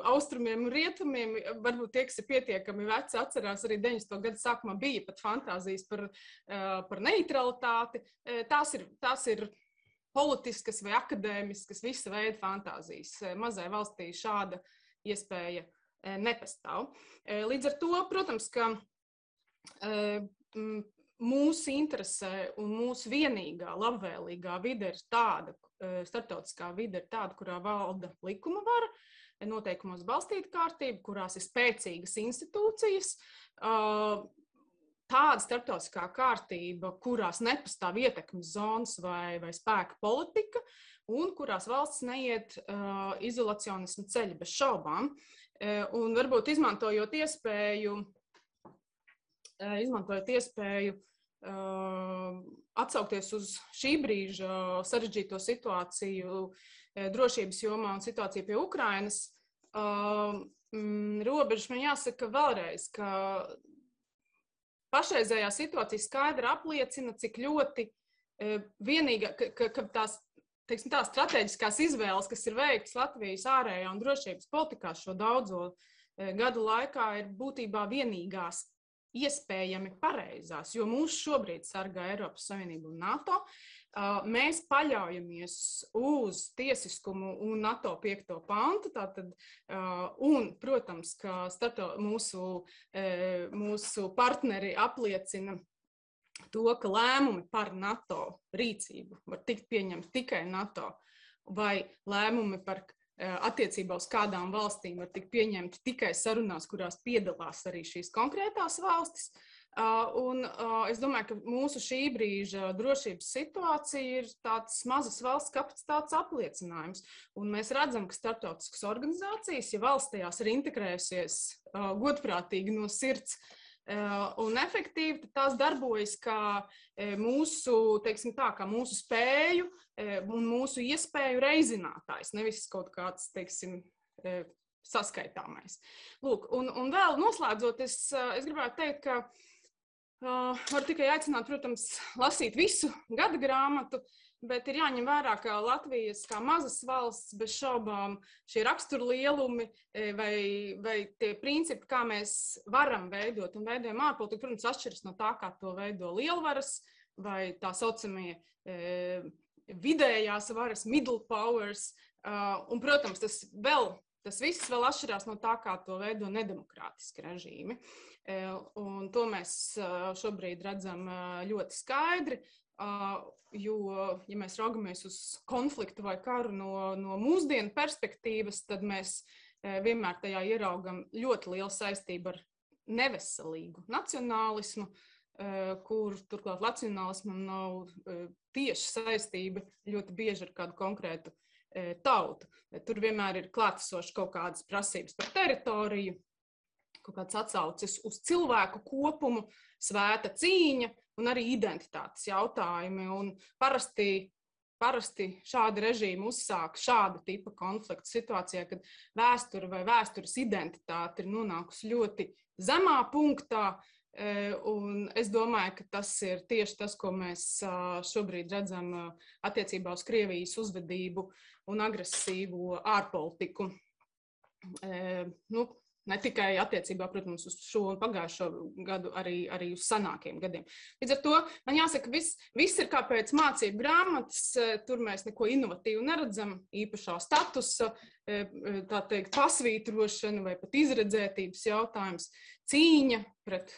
austrumiem un rietumiem, varbūt tie, kas ir pietiekami veci, atcerās arī 90. gadu sākumā bija pat fantāzijas par neutralitāti. Tās ir politiskas vai akadēmiskas, visa veida fantāzijas. Mazai valstī šāda iespēja nepastāv. Līdz ar to, protams, ka mūsu interesē un mūsu vienīgā labvēlīgā vide ir tāda, starptautiskā vide ir tāda, kurā valda likuma vara, noteikumos balstīta kārtība, kurās ir spēcīgas institūcijas, tāda starptautiskā kārtība, kurās nepastāv ietekmes zonas vai spēka politika, un kurās valsts neiet izolacionismu ceļu bez šaubām. Un varbūt izmantojot iespēju atsaukties uz šī brīža sarežģīto situāciju drošības jomā un situāciju pie Ukrainas, robežas man jāsaka vēlreiz, ka pašreizējā situācija skaidri apliecina, cik ļoti vienīga, ka tās strateģiskās izvēles, kas ir veiktas Latvijas ārējā un drošības politikā šo daudzo gadu laikā, ir būtībā vienīgās iespējami pareizās, jo mūs šobrīd sargā Eiropas Savienība un NATO. Mēs paļaujamies uz tiesiskumu un NATO 5. pantu, un, protams, ka mūsu partneri apliecina to, ka lēmumi par NATO rīcību var tikt pieņemti tikai NATO, vai lēmumi par attiecībā uz kādām valstīm var tikt pieņemti tikai sarunās, kurās piedalās arī šīs konkrētās valstis. Un es domāju, ka mūsu šī brīža drošības situācija ir tāds mazas valsts kapacitātes apliecinājums. Un mēs redzam, ka starptautiskas organizācijas, ja valsts tajās ir integrējusies godprātīgi no sirds un efektīvi, tad tās darbojas kā mūsu, teiksim tā, kā mūsu spēju un mūsu iespēju reizinātājs, nevis kaut kāds, teiksim, saskaitāmais. Lūk, un vēl noslēdzot, es gribētu teikt, ka varu tikai aicināt, protams, lasīt visu gada grāmatu, bet ir jāņem vērā, ka Latvijas kā mazas valsts bez šaubām šie raksturlielumi vai tie principi, kā mēs varam veidot un veidojam ārpolitiku, protams, atšķiras no tā, kā to veido lielvaras vai tā saucamie vidējās varas, middle powers. Un, protams, tas viss vēl atšķirās no tā, kā to veido nedemokrātiski režīmi. Un to mēs šobrīd redzam ļoti skaidri. Jo, ja mēs raugamies uz konfliktu vai karu no mūsdienu perspektīvas, tad mēs vienmēr tajā ieraugam ļoti lielu saistību ar neveselīgu nacionālismu, kur turklāt nacionālismam nav tieši saistība ļoti bieži ar kādu konkrētu tautu. Tur vienmēr ir klātesoši kaut kādas prasības par teritoriju, kaut kāds atsaucis uz cilvēku kopumu, svēta cīņa un arī identitātes jautājumi. Un parasti parasti šādi režīmi uzsāk šāda tipa konfliktu situācijā, kad vēsture vai vēstures identitāte ir nonākusi ļoti zemā punktā. Un es domāju, ka tas ir tieši tas, ko mēs šobrīd redzam attiecībā uz Krievijas uzvedību un agresīvo ārpolitiku. Ne tikai attiecībā, protams, uz šo un pagājušo gadu, arī uz senākiem gadiem. Līdz ar to man jāsaka, viss ir kā pēc mācību grāmatas, tur mēs neko inovatīvu neredzam, īpašā statusa, tā teikt, pasvītrošana vai pat izredzētības jautājums, cīņa pret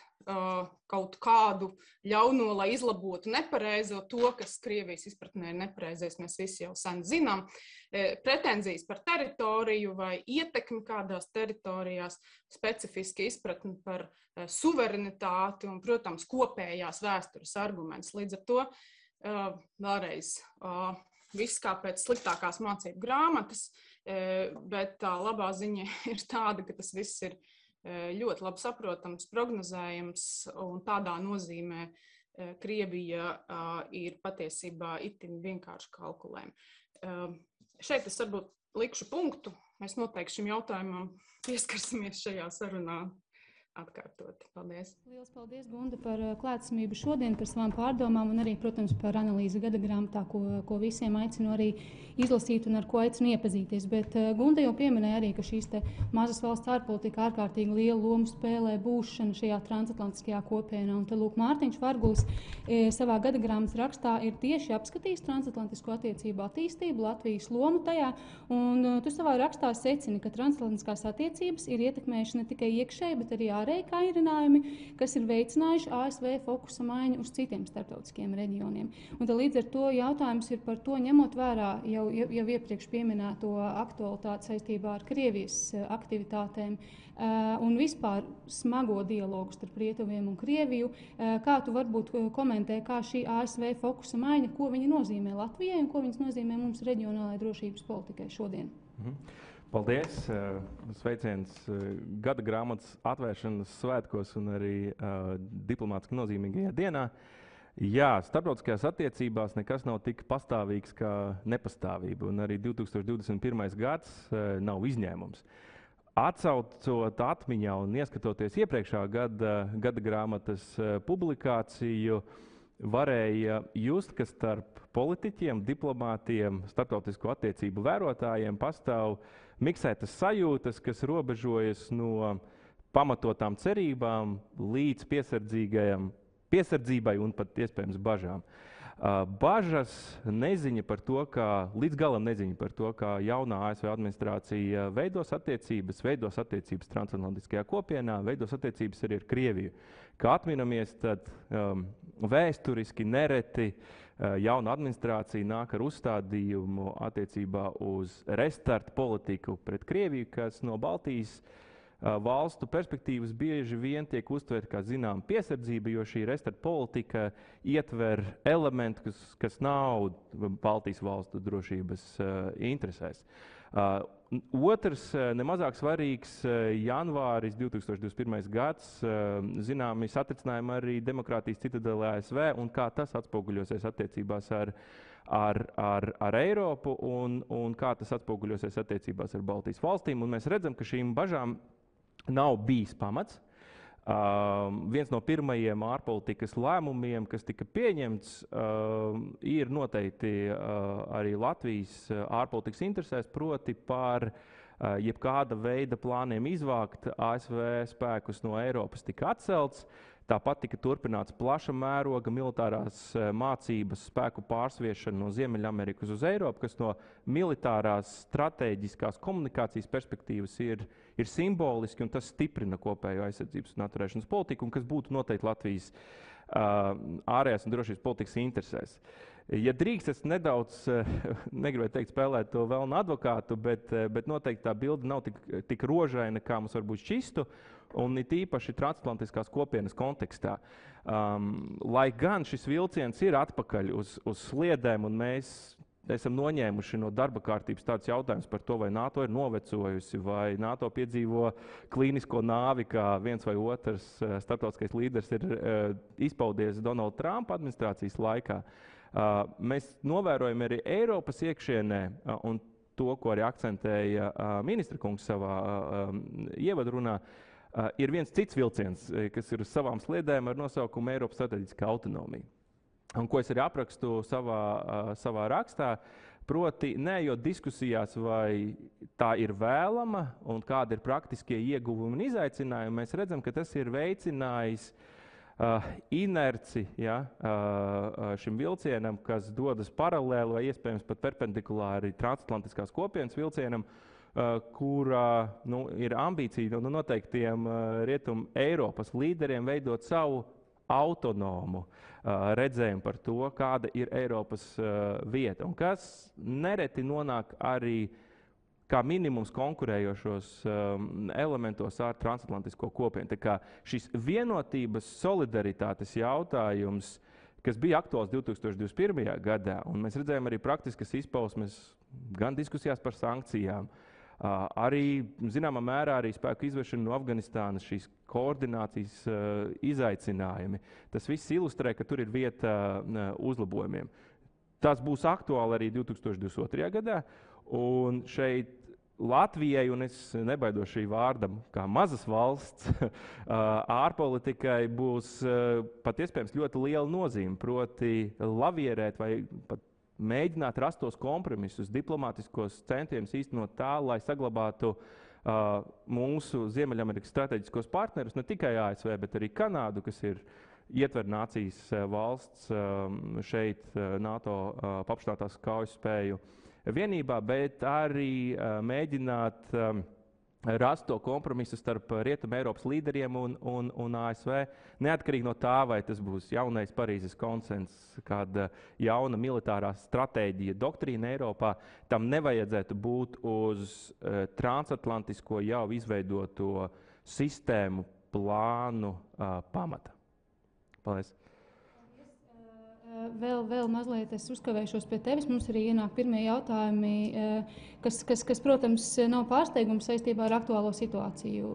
kaut kādu ļauno, lai izlabotu nepareizo, to, kas Krievijas izpratnē ir nepareizais, mēs visi jau sen zinām, pretenzijas par teritoriju vai ietekmi kādās teritorijās, specifiski izpratni par suverenitāti un, protams, kopējās vēstures arguments. Līdz ar to vēlreiz viss kā pēc sliktākās mācību grāmatas, bet tā labā ziņa ir tāda, ka tas viss ir ļoti labi saprotams, prognozējams, un tādā nozīmē Krievija ir patiesībā itin vienkārši kalkulējama. Šeit es varbūt likšu punktu. Mēs noteikti šim jautājumam pieskarsimies šajā sarunā atkārtot. Paldies. Lielas paldies, Gunda, par klātesamību šodien, par savām pārdomām un arī, protams, par analīzi gada grāmatā, ko visiem aicinu arī izlasīt un ar ko aicinu iepazīties. Bet Gunda jau pieminēja arī, ka šīs te mazas valsts ārpolitika ārkārtīgi lielu lomu spēlē būšana šajā transatlantiskajā kopienā. Un te lūk, Mārtiņš Varguls savā gada grāmatas rakstā ir tieši apskatījis transatlantisko attiecību attīstību, Latvijas lomu tajā. Un tu savā rakstā secini, ka transatlantiskās attiecības ir ietekmējuši ne tikai iekšēji, bet arī ārēji kairinājumi, kas ir veicinājuši ASV fokusa maiņu uz citiem starptautiskiem reģioniem. Un līdz ar to jautājums ir par to, ņemot vērā jau iepriekš pieminēto aktualitāti saistībā ar Krievijas aktivitātēm un vispār smago dialogu starp Rietuviem un Krieviju. Kā tu varbūt komentē, kā šī ASV fokusa maiņa, ko viņa nozīmē Latvijai un ko viņas nozīmē mums reģionālajai drošības politikai šodien? Paldies! Sveiciens gada grāmatas atvēršanas svētkos un arī diplomātiski nozīmīgajā dienā. Jā, starptautiskajās attiecībās nekas nav tik pastāvīgs kā nepastāvība, un arī 2021. gads nav izņēmums. Atcaucot atmiņā un ieskatoties iepriekšā gada grāmatas publikāciju, varēja just, ka starp politiķiem, diplomātiem, starptautisko attiecību vērotājiem pastāv miksētas sajūtas, kas robežojas no pamatotām cerībām līdz piesardzībai un pat iespējams bažām. Bažas neziņa par to, līdz galam neziņa par to, kā jaunā ASV administrācija veidos attiecības transatlantiskajā kopienā, veidos attiecības arī ar Krieviju. Kā atminamies, tad vēsturiski nereti jauna administrācija nāk ar uzstādījumu attiecībā uz restartu politiku pret Krieviju, kas no Baltijas valstu perspektīvas bieži vien tiek uztvērta kā zinām piesardzība, jo šī restartu politika ietver elementu, kas nav Baltijas valstu drošības interesēs. Otrs, nemazāk svarīgs, janvāris 2021. gads, zināmi satricinājumi arī demokrātijas citadelē ASV un kā tas atspoguļosies attiecībās ar Eiropu un kā tas atspoguļosies attiecībās ar Baltijas valstīm. Un mēs redzam, ka šīm bažām nav bijis pamats. Viens no pirmajiem ārpolitikas lēmumiem, kas tika pieņemts, ir noteikti arī Latvijas ārpolitikas interesēs, proti par jebkāda veida plāniem izvākt ASV spēkus no Eiropas tika atcelts. Tāpat tika turpināts plaša mēroga militārās mācības spēku pārsviešana no Ziemeļamerikas uz Eiropu, kas no militārās stratēģiskās komunikācijas perspektīvas ir simboliski, un tas stiprina kopējo aizsardzības un atturēšanas politiku, un kas būtu noteikti Latvijas ārējās un drošības politikas interesēs. Ja drīkst, es nedaudz, negribētu teikt, spēlēt to vēlnu advokātu, bet noteikti tā bilde nav tik rožaina, kā mums varbūt šķistu, un it īpaši transatlantiskās kopienas kontekstā. Lai gan šis vilciens ir atpakaļ uz sliedēm, un mēs esam noņēmuši no darba kārtības tāds jautājums par to, vai NATO ir novecojusi, vai NATO piedzīvo klīnisko nāvi, kā viens vai otrs starptautiskais līderis ir izpaudies Donalda Trumpa administrācijas laikā. Mēs novērojam arī Eiropas iekšienē, un to, ko arī akcentēja ministra kungs savā ievadrunā, ir viens cits vilciens, kas ir uz savām sliedēm ar nosaukumu Eiropas strateģiskā autonomija. Un ko es arī aprakstu savā rakstā, proti neejot diskusijās, vai tā ir vēlama un kādi ir praktiskie ieguvumi un izaicinājumi, mēs redzam, ka tas ir veicinājis inerci šim vilcienam, kas dodas paralēli vai iespējams pat perpendikulāri transatlantiskās kopienas vilcienam, kurā ir ambīcija noteiktiem Rietumu Eiropas līderiem veidot savu autonomu redzējumu par to, kāda ir Eiropas vieta, un kas nereti nonāk arī kā minimums konkurējošos elementos ar transatlantisko kopienu. Tā kā šis vienotības solidaritātes jautājums, kas bija aktuāls 2021. Gadā, un mēs redzējām arī praktiskas izpausmes gan diskusijās par sankcijām, arī, zināmā mērā, arī spēku izvešana no Afganistānas, šīs koordinācijas izaicinājumi. Tas viss ilustrē, ka tur ir vieta uzlabojumiem. Tas būs aktuāli arī 2022. Gadā, un šeit Latvijai, un es nebaidos šī vārda, kā mazas valsts, ārpolitikai būs pat iespējams ļoti liela nozīme, proti lavierēt vai pat mēģināt rast tos kompromisus, diplomātiskos centienus īstenot tā, lai saglabātu mūsu Ziemeļamerikas strateģiskos partnerus, ne tikai ASV, bet arī Kanādu, kas ir ietver nācijas valsts šeit NATO paplašinātās kaujas spēju vienībā, bet arī mēģināt rast to kompromisu starp Rietumu Eiropas līderiem un ASV, neatkarīgi no tā, vai tas būs jaunais Parīzes konsens, kāda jauna militārā stratēģija, doktrīna Eiropā, tam nevajadzētu būt uz transatlantisko jau izveidoto sistēmu plānu pamata. Paldies! Vēl mazliet es uzkavēšos pie tevis. Mums arī ienāk pirmie jautājumi, kas protams, nav pārsteigums saistībā ar aktuālo situāciju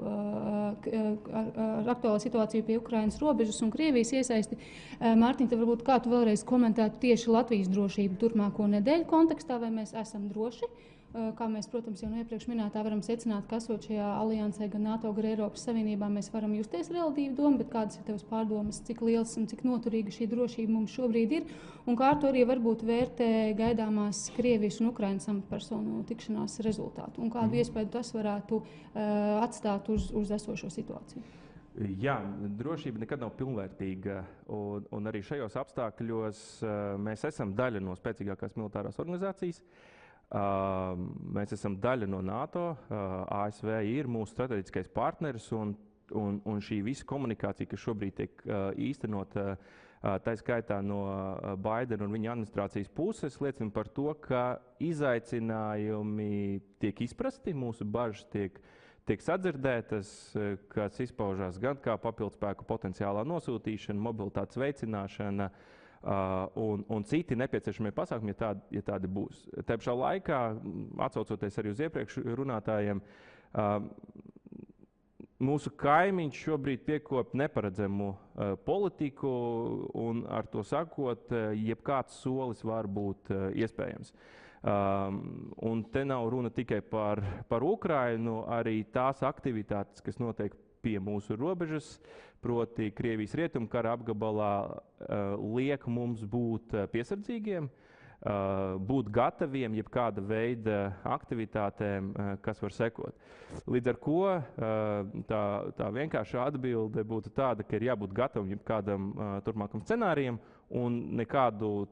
pie Ukrainas robežas un Krievijas iesaisti. Mārtiņ, tad varbūt kā tu vēlreiz komentētu tieši Latvijas drošību turpmāko nedēļu kontekstā, vai mēs esam droši? Kā mēs, protams, jau no iepriekš minētā varam secināt, ka esot šajā aliansē gan NATO, gan Eiropas Savienībā, mēs varam justies relatīvi domu, bet kādas ir tevas pārdomas, cik liels un cik noturīga šī drošība mums šobrīd ir, un kā to arī varbūt vērtē gaidāmās Krievijas un Ukrainas amatpersonu tikšanās rezultātu, un kādu iespēju tas varētu atstāt uz esošo situāciju? Jā, drošība nekad nav pilnvērtīga, un arī šajos apstākļos mēs esam daļa no spēcīgākās militārās organizācijas. Mēs esam daļa no NATO, ASV ir mūsu strateģiskais partneris, un šī visa komunikācija, kas šobrīd tiek īstenota, tā skaitā no Baidena un viņa administrācijas puses, liecina par to, ka izaicinājumi tiek izprasti, mūsu bažas tiek sadzirdētas, kas izpaužās gan kā papildspēku potenciālā nosūtīšana, mobilitātes veicināšana, un citi nepieciešamie pasākumi, ja tādi būs. Tā pašā laikā, atsaucoties arī uz iepriekš runātājiem, mūsu kaimiņš šobrīd piekop neparedzamu politiku, un ar to sakot, jebkāds solis var būt iespējams. Un te nav runa tikai par Ukrainu, arī tās aktivitātes, kas notiek pie mūsu robežas, proti Krievijas rietumkara apgabalā, liek mums būt piesardzīgiem, būt gataviem jebkāda veida aktivitātēm, kas var sekot. Līdz ar ko tā vienkāršā atbilde būtu tāda, ka ir jābūt gatavam jebkādam turpmākam scenārijam, un nekādu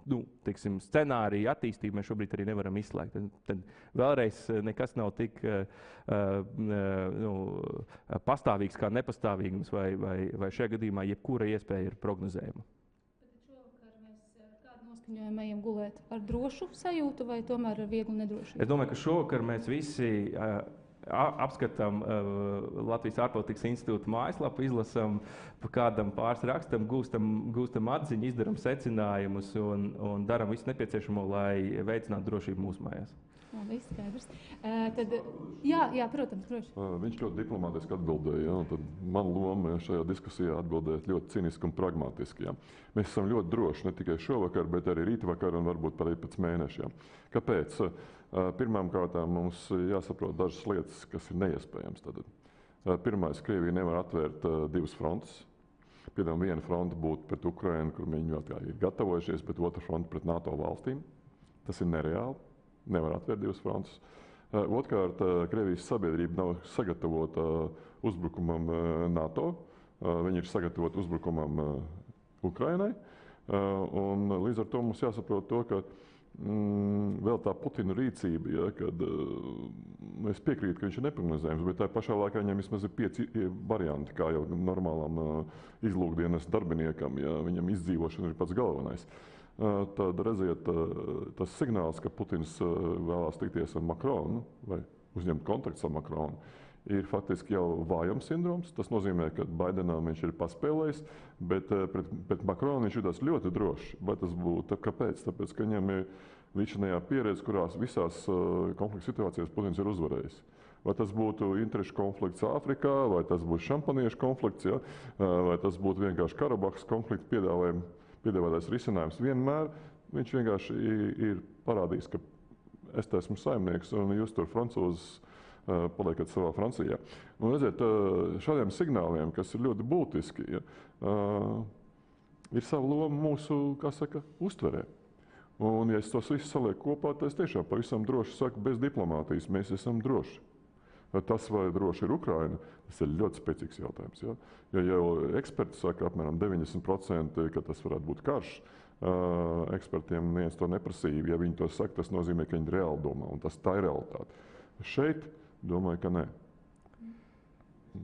scenāriju attīstību mēs šobrīd arī nevaram izslēgt. Tad vēlreiz nekas nav tik pastāvīgs kā nepastāvīgums, vai šajā gadījumā jebkura iespēja ir prognozējama. Šovakar mēs kādu noskaņojumu ejam gulēt? Ar drošu sajūtu vai tomēr ar vieglu nedrošību? Es domāju, ka šovakar mēs visi apskatām Latvijas ārpolitikas institūta mājaslapu, izlasām pa kādam pāris rakstam, gūstam atziņu, izdaram secinājumus un darām visu nepieciešamo, lai veicinātu drošību mūsu mājās. Labi, skaidrs. Tad, jā, protams, droši. Viņš ļoti diplomātiski atbildēja, ja, un tad man loma šajā diskusijā atbildēt ļoti ciniski un pragmatiski. Ja. Mēs esam ļoti droši, ne tikai šovakar, bet arī rītvakar un varbūt arī pēc mēneša. Ja. Kāpēc? Pirmām kārtām mums jāsaprot dažas lietas, kas ir neiespējams. Tad. Pirmais, Krievija nevar atvērt divas frontes. Piemēram, viena fronte būtu pret Ukrainu, kur viņi vēl ir gatavojušies, bet otra fronte pret NATO valstīm. Tas ir nereāli. Nevar atvērt divas frontes. Otrkārt, Krievijas sabiedrība nav sagatavota uzbrukumam NATO. Viņi ir sagatavoti uzbrukumam Ukrainai. Un līdz ar to mums jāsaprot to, ka vēl tā Putina rīcība, ja, kad es piekrītu, ka viņš ir neprognozējams, bet tā pašā laikā viņam vismaz ir 5 varianti, kā jau normālam izlūkdienas darbiniekam, ja viņam izdzīvošana ir pats galvenais. Tad redziet, tas signāls, ka Putins vēlās tikties ar Makronu vai uzņemt kontaktus ar Makronu, ir faktiski jau vājums sindroms. Tas nozīmē, ka Baidenam viņš ir paspēlējis, bet pret Makronu viņš jutās ļoti droši. Vai tas būtu? Kāpēc? Tāpēc, ka viņam ir līdzinājā pieredze, kurās visās konflikta situācijās Putins ir uzvarējis. Vai tas būtu interešu konflikts Āfrikā, vai tas būtu šampaniešu konflikts, ja? Vai tas būtu vienkārši Karabahas konflikta piedāvātais risinājums. Vienmēr viņš vienkārši ir parādījis, ka es esmu saimnieks un jūs tur francūzes paliekat savā Francijā. Un redziet, šādiem signāliem, kas ir ļoti būtiski, ja, ir sava loma mūsu, kā saka, uztverē. Un ja es tos visus salieku kopā, tad es tiešām pavisam droši saku, bez diplomātijas mēs esam droši. Tas, vai droši ir Ukraina, tas ir ļoti spēcīgs jautājums. Ja, ja jau eksperti saka apmēram 90%, ka tas varētu būt karš, ekspertiem neviens to neprasīja. Ja viņi to saka, tas nozīmē, ka viņi reāli domā, un tā ir realitāte. Šeit domāju, ka nē.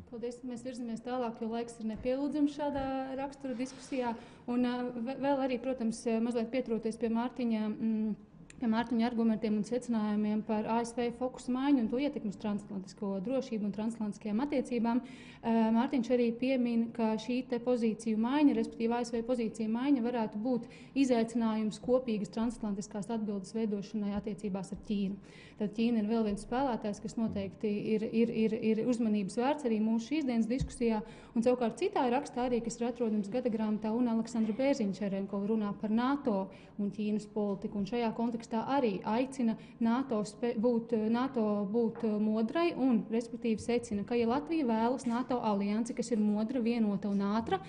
Paldies, mēs virzamies tālāk, jo laiks ir nepielūdzams šādā rakstura diskusijā. Un vēl arī, protams, mazliet pieturoties pie Mārtiņa argumentiem un secinājumiem par ASV fokusu maiņu un to ietekmi uz transatlantisko drošību un transatlantiskajām attiecībām. Mārtiņš arī piemin, ka šī te pozīciju maiņa, respektīvi ASV pozīcija maiņa, varētu būt izaicinājums kopīgas transatlantiskās atbildes veidošanai attiecībās ar Ķīnu. Tad Ķīna ir vēl viens spēlētājs, kas noteikti ir uzmanības vērts arī mūsu šīsdienas diskusijā. Un savukārt citā rakstā arī, kas ir atrodams gada grāmatā, un Aleksandra Bērziņš-Čerenkova runā par NATO un Ķīnas politiku. Un šajā kontekstā arī aicina NATO būt modrai un, respektīvi, secina, ka, ja Latvija vēlas NATO aliansi, kas ir modra, vienota un ātra,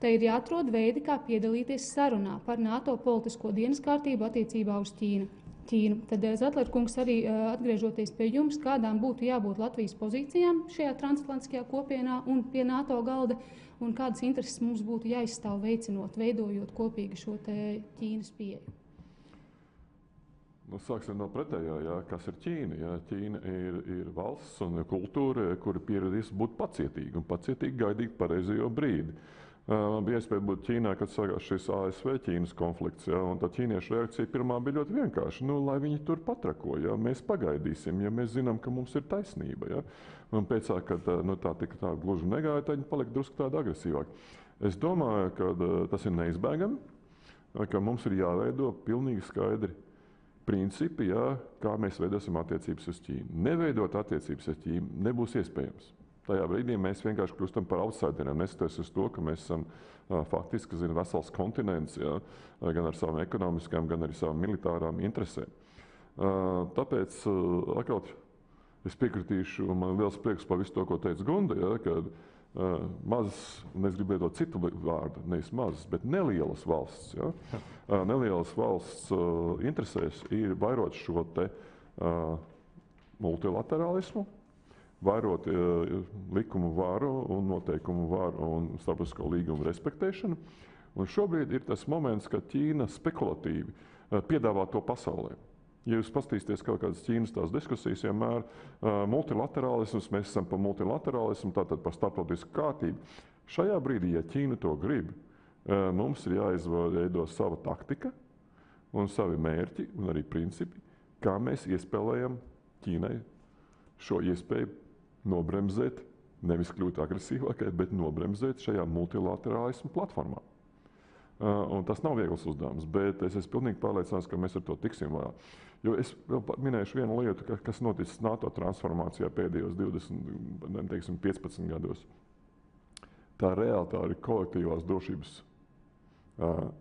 tad ir jāatrod veidi, kā piedalīties sarunā par NATO politisko dienas kārtību attiecībā uz Ķīnu. Tad, Zatler kungs, arī atgriežoties pie jums, kādām būtu jābūt Latvijas pozīcijām šajā transatlantiskajā kopienā un pie NATO galda, un kādas intereses mums būtu jāizstāv veicinot, veidojot kopīgi šo te Ķīnas pieeju? Nu, sāksim no pretējā, jā, kas ir Ķīna. Jā. Ķīna ir valsts un kultūra, kura pieradīs būt pacietīga un pacietīgi gaidīt pareizo brīdi. Man bija iespēja būt Ķīnā, kad sākās šis ASV-Ķīnas konflikts, ja, un tā ķīniešu reakcija pirmā bija ļoti vienkārša. Nu, lai viņi tur patrako, ja, mēs pagaidīsim, ja mēs zinām, ka mums ir taisnība. Ja. Un pēc tā, kad tā gluži negāja, tad viņi palika drusku tādi agresīvāki. Es domāju, ka tas ir neizbēgami, ka mums ir jāveido pilnīgi skaidri principi, ja, kā mēs veidosim attiecības uz Ķīnu. Neveidot attiecības ar Ķīnu nebūs iespējams. Tajā brīdī mēs vienkārši kļūstam par outsideriem, neskatoties uz to, ka mēs esam faktiski vesels kontinents, ja, gan ar savām ekonomiskām, gan arī savām militārām interesēm. Tāpēc atkal es piekritīšu, un man ir liels prieks par visu to, ko teica Gunda, ja, kad mazas, un es gribu lietot citu vārdu, nevis mazas, bet nelielas valsts. Ja. Nelielas valsts interesēs ir vairot šo te multilaterālismu, vairot likumu varu un noteikumu varu un starptautisko līgumu respektēšanu. Un šobrīd ir tas moments, kad Ķīna spekulatīvi piedāvā to pasaulē. Ja jūs paskatīsieties kaut kādas Ķīnas tās diskusijas, vienmēr multilaterālisms, mēs esam par multilaterālismu, tātad par starptautisku kārtību. Šajā brīdī, ja Ķīna to grib, mums ir jāizveido sava taktika un savi mērķi un arī principi, kā mēs iespēlējam Ķīnai šo iespēju nobremzēt, nevis kļūt agresīvākai, bet nobremzēt šajā multilaterālismu platformā. Un tas nav viegls uzdevums, bet es esmu pilnīgi pārliecināts, ka mēs ar to tiksim vaļā. Jo es vēl minēšu vienu lietu, kas noticis NATO transformācijā pēdējos 20, teiksim, 15 gados. Tā reāli ir kolektīvās drošības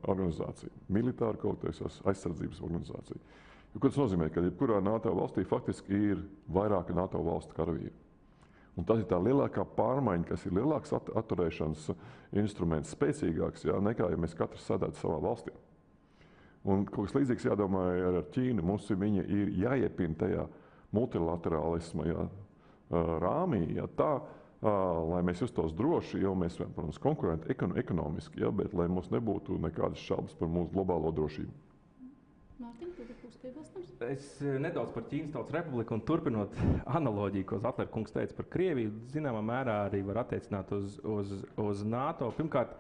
organizācija, militāra kolektīvās aizsardzības organizācija. Jo, ko tas nozīmē, ka jebkurā NATO valstī faktiski ir vairāki NATO valstu karavīri. Un tas ir tā lielākā pārmaiņa, kas ir lielāks atturēšanas instruments, spēcīgāks, nekā ja mēs katrs sēdētu savā valstī. Un kaut kas līdzīgs jādomā ar Ķīnu. Mums viņa ir jāiepina tajā multilaterālisma rāmī, tā, lai mēs justos droši, jo mēs, protams, konkurenti ekonomiski, bet lai mums nebūtu nekādas šaubas par mūsu globālo drošību. Mārtiņ, tu būs piebilstams? Es nedaudz par Ķīnas Tautas Republiku un turpinot analoģiju, ko Zatler kungs teica par Krieviju, zināmā mērā arī var attiecināt uz NATO. Pirmkārt,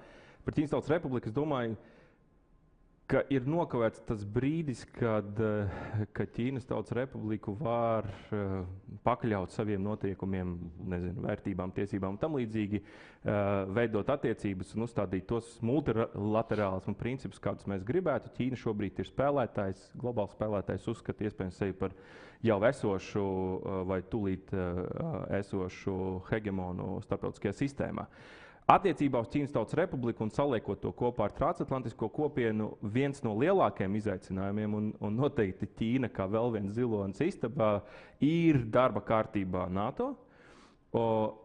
par Ķīnas Tautas Republiku es domāju, ka ir nokavēts tas brīdis, kad Ķīnas Tautas Republiku var pakļaut saviem noteikumiem, vērtībām, tiesībām un tam līdzīgi, veidot attiecības un uzstādīt tos multilaterālismu principus, kādus mēs gribētu. Ķīna šobrīd ir spēlētājs, globāls spēlētājs, uzskata iespējams sevi par jau esošu vai tūlīt esošu hegemonu starptautiskajā sistēmā. Attiecībā uz Ķīnas Tautas Republiku un saliekot to kopā ar transatlantisko kopienu, viens no lielākajiem izaicinājumiem, un noteikti Ķīna, kā vēl viens zilonis istabā, ir darba kārtībā NATO.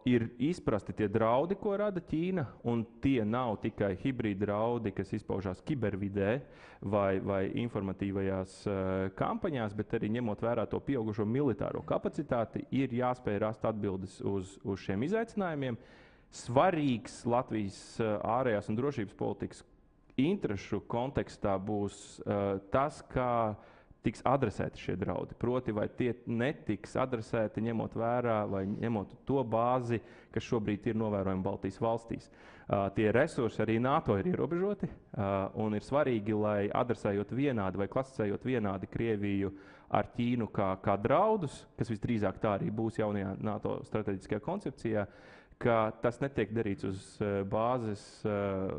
Ir izprasti tie draudi, ko rada Ķīna, un tie nav tikai hibrīda draudi, kas izpaužās kibervidē vai informatīvajās kampaņās, bet arī ņemot vērā to pieaugušo militāro kapacitāti, ir jāspēj rast atbildes uz šiem izaicinājumiem. Svarīgs Latvijas ārējās un drošības politikas interešu kontekstā būs tas, kā tiks adresēti šie draudi. Proti, vai tie netiks adresēti ņemot vērā vai ņemot to bāzi, kas šobrīd ir novērojama Baltijas valstīs. Tie resursi arī NATO ir ierobežoti, un ir svarīgi, lai adresējot vienādi vai klasicējot vienādi Krieviju ar Ķīnu kā draudus, kas visdrīzāk tā arī būs jaunajā NATO strateģiskajā koncepcijā, ka tas netiek darīts uz bāzes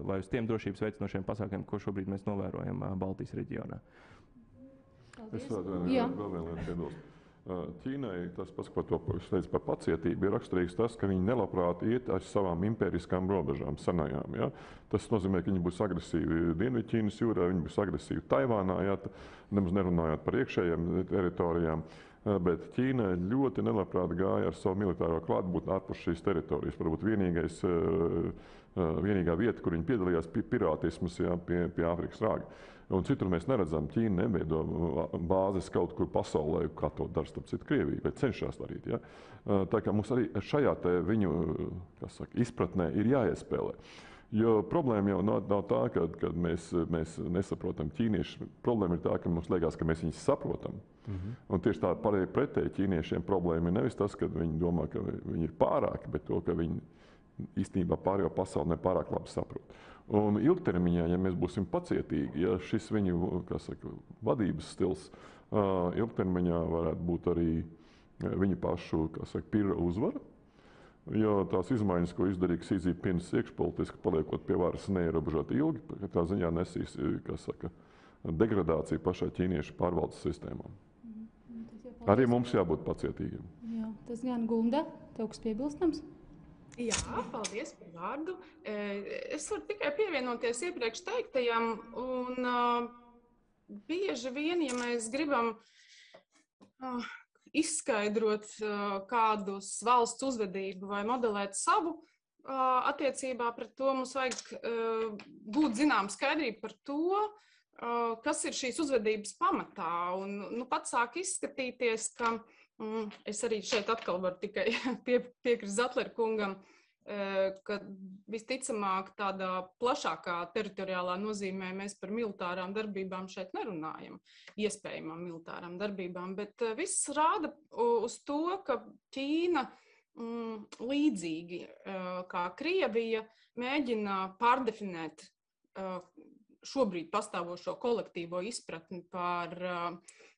vai uz tiem drošības veicinošiem pasākumiem, ko šobrīd mēs novērojam Baltijas reģionā. Es vēl vienu lietu piebilstu. Ķīnai tas pats, ko to teicu par pacietību, ir raksturīgs tas, ka viņi nelabprāt iet ar savām impēriskām robežām senajām. Ja? Tas nozīmē, ka viņi būs agresīvi Dienvidķīnas jūrā, viņi būs agresīvi Taivānā, nemaz nerunājot par iekšējām teritorijām. Bet Ķīna ļoti nelabprāt gāja ar savu militāro klātbūtni ārpus šīs teritorijas. Varbūt vienīgā vieta, kur viņi piedalījās, pirātisms pie Āfrikas rāga. Un citur mēs neredzam, Ķīna neveido bāzes kaut kur pasaulē, kā to dara starp citu Krieviju, vai cenšas darīt. Ja? Tā kā mums arī šajā viņu izpratnē ir jāiespēlē. Jo problēma jau nav tā, ka mēs nesaprotam ķīniešus. Problēma ir tā, ka mums liekas, ka mēs viņus saprotam. Un tieši tā pretēji ķīniešiem problēma ir nevis tas, ka viņi domā, ka viņi ir pārāki, bet to, ka viņi īstenībā pārējo pasauli nepārāk labi saprot. Un ilgtermiņā, ja mēs būsim pacietīgi, ja šis viņu vadības stils ilgtermiņā varētu būt arī viņu pašu pirra uzvara, jo tās izmaiņas, ko izdarīja Xi Jinpings iekšpolitiski, paliekot pie varas neierobežot ilgi, tā ziņā nesīs degradāciju pašai ķīniešu pārvaldes sistēmām. Arī mums jābūt pacietīgiem. Jā, tas gan Gunda, tev kas piebilstams? Jā, paldies par vārdu. Es varu tikai pievienoties iepriekš teiktajam, un bieži vien, ja mēs gribam izskaidrot kādus valsts uzvedību vai modelēt savu attiecībā pret to, mums vajag būt zinām skaidrību par to, kas ir šīs uzvedības pamatā. Un pat sāk izskatīties, ka es arī šeit atkal varu tikai piekrist Zatler kungam, ka visticamāk tādā plašākā teritoriālā nozīmē mēs par militārām darbībām šeit nerunājam, iespējamām militārām darbībām, bet viss rāda uz to, ka Ķīna līdzīgi kā Krievija mēģina pārdefinēt šobrīd pastāvošo kolektīvo izpratni par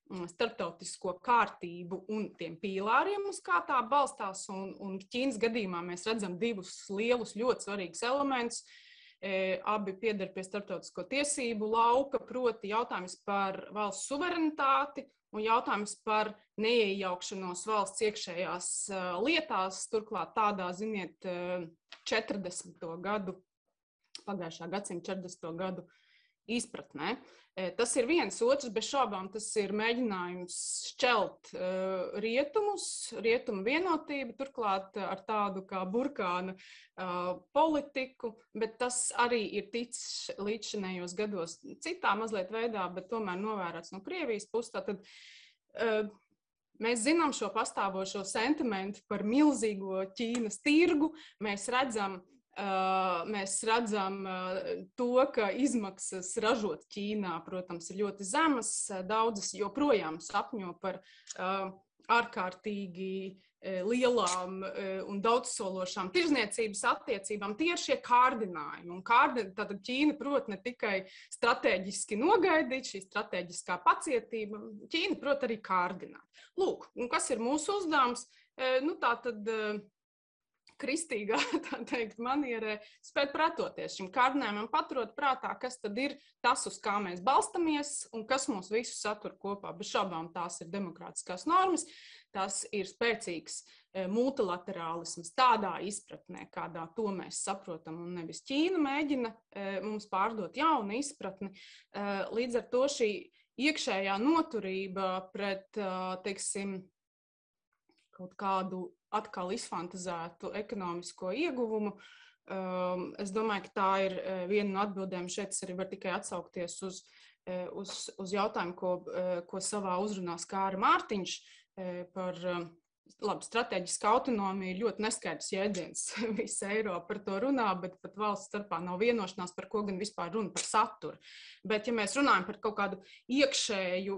starptautisko kārtību un tiem pīlāriem, uz kā tā balstās. Un Ķīnas gadījumā mēs redzam divus lielus, ļoti svarīgus elementus. Abi pieder pie starptautisko tiesību lauka, proti jautājums par valsts suverenitāti un jautājums par neiejaukšanos valsts iekšējās lietās, turklāt tādā, ziniet, 40. gadu, pagājušā gadsimta 40. gadu izpratnē. Tas ir viens, otrs, bez šaubām tas ir mēģinājums šķelt rietumu vienotību, turklāt ar tādu kā burkāna politiku, bet tas arī ir ticis līdzšinējos gados citā mazliet veidā, bet tomēr novērots no Krievijas puses. Tātad mēs zinām šo pastāvošo sentimentu par milzīgo Ķīnas tirgu, mēs redzam to, ka izmaksas ražot Ķīnā, protams, ir ļoti zemas. Daudzas joprojām sapņo par ārkārtīgi lielām un daudzsološām tirzniecības attiecībām. Tie ir šie kārdinājumi. Un tātad Ķīna prot ne tikai strateģiski nogaidīt, šī strateģiskā pacietība, Ķīna prot arī kārdināt. Lūk, un kas ir mūsu uzdevums? Tātad kristīgā, tā teikt, manierē spēt pretoties šim kārdinājumam, paturot prātā, kas tad ir tas, uz kā mēs balstamies un kas mūs visus satur kopā. Bez šaubām tās ir demokrātiskās normas, tas ir spēcīgs multilaterālisms tādā izpratnē, kādā to mēs saprotam, un nevis Ķīna mēģina mums pārdot jaunu izpratni. Līdz ar to šī iekšējā noturība pret, teiksim, kaut kādu atkal izfantazētu ekonomisko ieguvumu. Es domāju, ka tā ir viena no atbildēm. Šeit es arī varu tikai atsaukties uz jautājumu, ko savā uzrunā skāra Mārtiņš par strateģiska autonomija ir ļoti neskaidrs jēdziens. Visa Eiropa par to runā, bet pat valsts starpā nav vienošanās, par ko gan vispār runa par saturu. Bet ja mēs runājam par kaut kādu iekšēju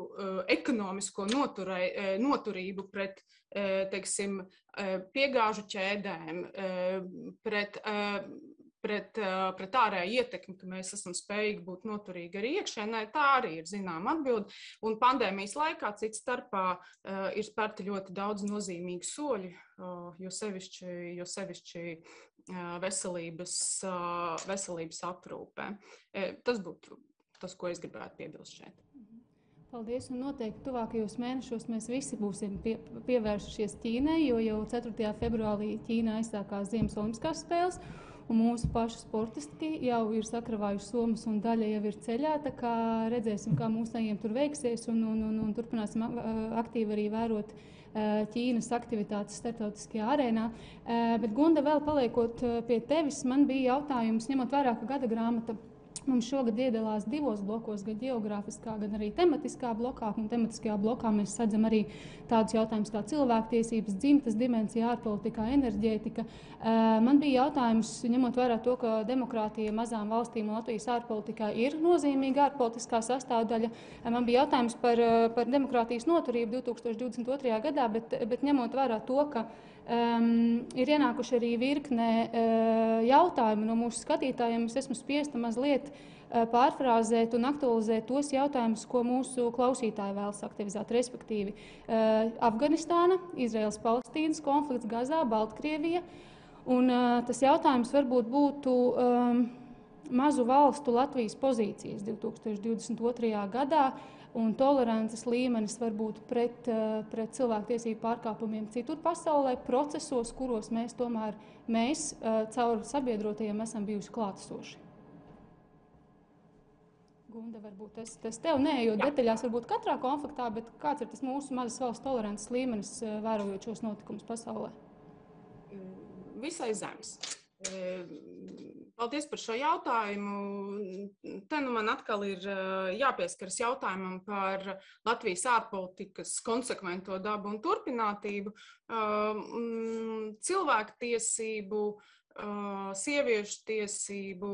ekonomisko noturību pret, teiksim, piegāžu ķēdēm, pret ārēju ietekmi, ka mēs esam spējīgi būt noturīgi arī iekšēnē, tā arī ir zināma atbilde. Un pandēmijas laikā cits starpā ir spērti ļoti daudz nozīmīgu soļu, jo sevišķi veselības aprūpē. Tas būtu tas, ko es gribētu piebilst šeit. Paldies, un noteikti tuvākajos mēnešos mēs visi būsim pievērsušies Ķīnai, jo jau 4. februārī Ķīnā aizsākās Ziemas olimpiskās spēles, un mūsu pašu sportisti jau ir sakravājuši somas un daļa jau ir ceļā, tā kā redzēsim, kā mūsējiem tur veiksies, un turpināsim aktīvi arī vērot Ķīnas aktivitātes starptautiskajā arēnā. Bet, Gunda, vēl paliekot pie tevis, man bija jautājums, ņemot vērā, ka gada grāmata mums šogad iedalās 2 blokos, gan geogrāfiskā, gan arī tematiskā blokā. Un tematiskajā blokā mēs sadzam arī tādus jautājumus kā cilvēktiesības, dzimtas dimensija, ārpolitikā, enerģētika. Man bija jautājums, ņemot vērā to, ka demokrātija mazām valstīm un Latvijas ārpolitikā ir nozīmīga ārpolitiskā sastāvdaļa. Man bija jautājums par demokrātijas noturību 2022. gadā, bet ņemot vērā to, ka ir ienākuši arī virkne jautājumu no mūsu skatītājiem. Es esmu spiesta mazliet pārfrāzēt un aktualizēt tos jautājumus, ko mūsu klausītāji vēlas aktivizēt, respektīvi Afganistāna, Izraels-Palestīnas konflikts, Gazā, Baltkrievija. Un tas jautājums varbūt būtu mazu valstu Latvijas pozīcijas 2022. gadā un tolerances līmenis varbūt pret cilvēktiesību pārkāpumiem citur pasaulē, procesos, kuros mēs caur sabiedrotajiem esam bijuši klātesoši. Gunda, varbūt tas tev neejot detaļās, varbūt katrā konfliktā, bet kāds ir tas mūsu mazas valsts tolerances līmenis, vērojot šos notikumus pasaulē? Visai zems. Paldies par šo jautājumu. Te man atkal ir jāpieskaras jautājumam par Latvijas ārpolitikas konsekvento dabu un turpinātību. Cilvēktiesību, sieviešu tiesību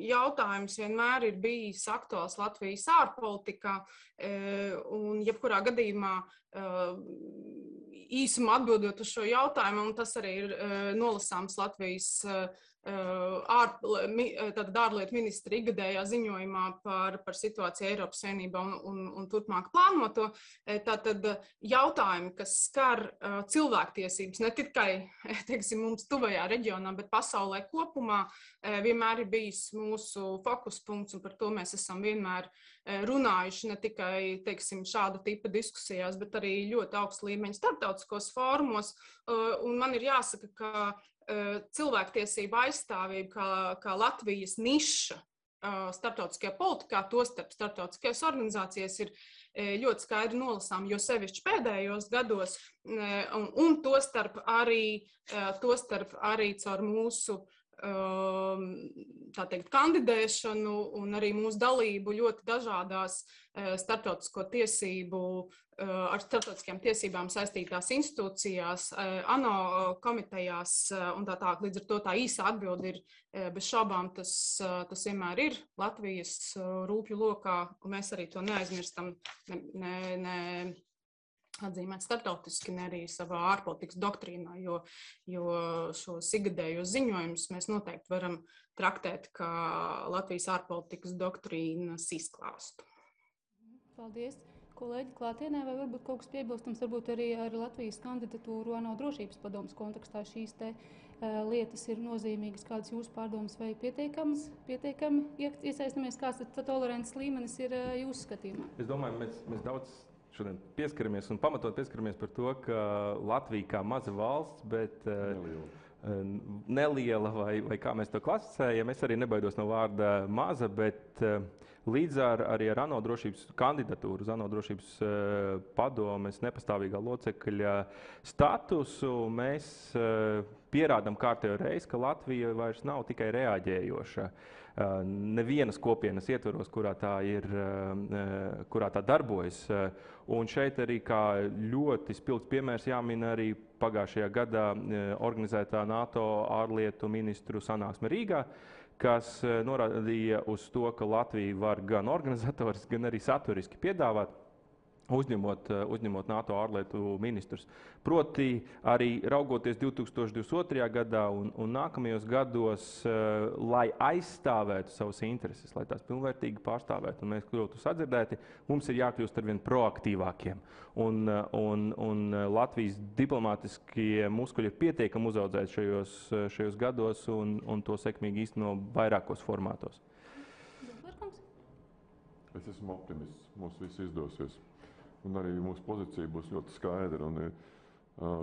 jautājums vienmēr ir bijis aktuāls Latvijas ārpolitikā, un jebkurā gadījumā īsumā atbildot uz šo jautājumu, un tas arī ir nolasāms Latvijas ārlietu ministra ikgadējā ziņojumā par situāciju Eiropas Savienībā un turpmāk plānoto. Tātad jautājumi, kas skar cilvēktiesības ne tikai, teiksim, mums tuvajā reģionā, bet pasaulē kopumā, vienmēr ir bijis mūsu fokuspunkts, un par to mēs esam vienmēr runājuši ne tikai, teiksim, šāda tipa diskusijās, bet arī ļoti augsta līmeņa starptautiskos fórumos. Un man ir jāsaka, ka cilvēktiesība aizstāvība kā Latvijas niša starptautiskajā politikā, tostarp starptautiskajās organizācijas ir ļoti skaidri nolasām, jo sevišķi pēdējos gados, un tostarp arī caur mūsu tā teikt, kandidēšanu un arī mūsu dalību ļoti dažādās starptautisko tiesību, ar starptautiskajām tiesībām saistītās institūcijās, ANO komitejās un tā tālāk. Līdz ar to tā īsa atbilde ir bez šaubām, tas vienmēr ir Latvijas rūpju lokā, un mēs arī to neaizmirstam, atzīmēt starptautiski, ne arī savā ārpolitikas doktrīnā, jo šos ikgadējos ziņojumus mēs noteikti varam traktēt kā Latvijas ārpolitikas doktrīnas izklāstu. Paldies. Kolēģi klātienē, vai varbūt kaut kas piebilstams, varbūt arī ar Latvijas kandidatūru ANO drošības padomes kontekstā šīs te lietas ir nozīmīgas, kādas jūsu pārdomas vai pietiekami iesaistamies, kāds tolerants līmenis ir jūsu skatījumā? Es domāju, mēs daudz šodien pieskaramies un pamatot pieskaramies par to, ka Latvija kā maza valsts, bet neliela vai kā mēs to klasificējam, es arī nebaidos no vārda maza, bet līdz arī ar ANO drošības kandidatūru, uz ANO drošības padomes nepastāvīgā locekļa statusu, mēs pierādam kārtējo reizi, ka Latvija vairs nav tikai reaģējoša. Nevienas kopienas ietvaros, kurā tā darbojas. Un šeit arī kā ļoti spilgts piemērs jāmin arī pagājušajā gadā organizētā NATO ārlietu ministru sanāksme Rīgā, kas norādīja uz to, ka Latvija var gan organizatoriski, gan arī saturiski piedāvāt, uzņemot NATO ārlietu ministrus. Proti arī raugoties 2022. gadā un nākamajos gados, lai aizstāvētu savas intereses, lai tās pilnvērtīgi pārstāvētu un mēs kļūtu sadzirdēti, mums ir jākļūst arvien proaktīvākiem. Un Latvijas diplomātiskie muskuļi ir pietiekami uzaudzēti šajos gados un to sekmīgi īsteno vairākos formātos. Es esmu optimists, mums viss izdosies. Un arī mūsu pozīcija būs ļoti skaidra. Un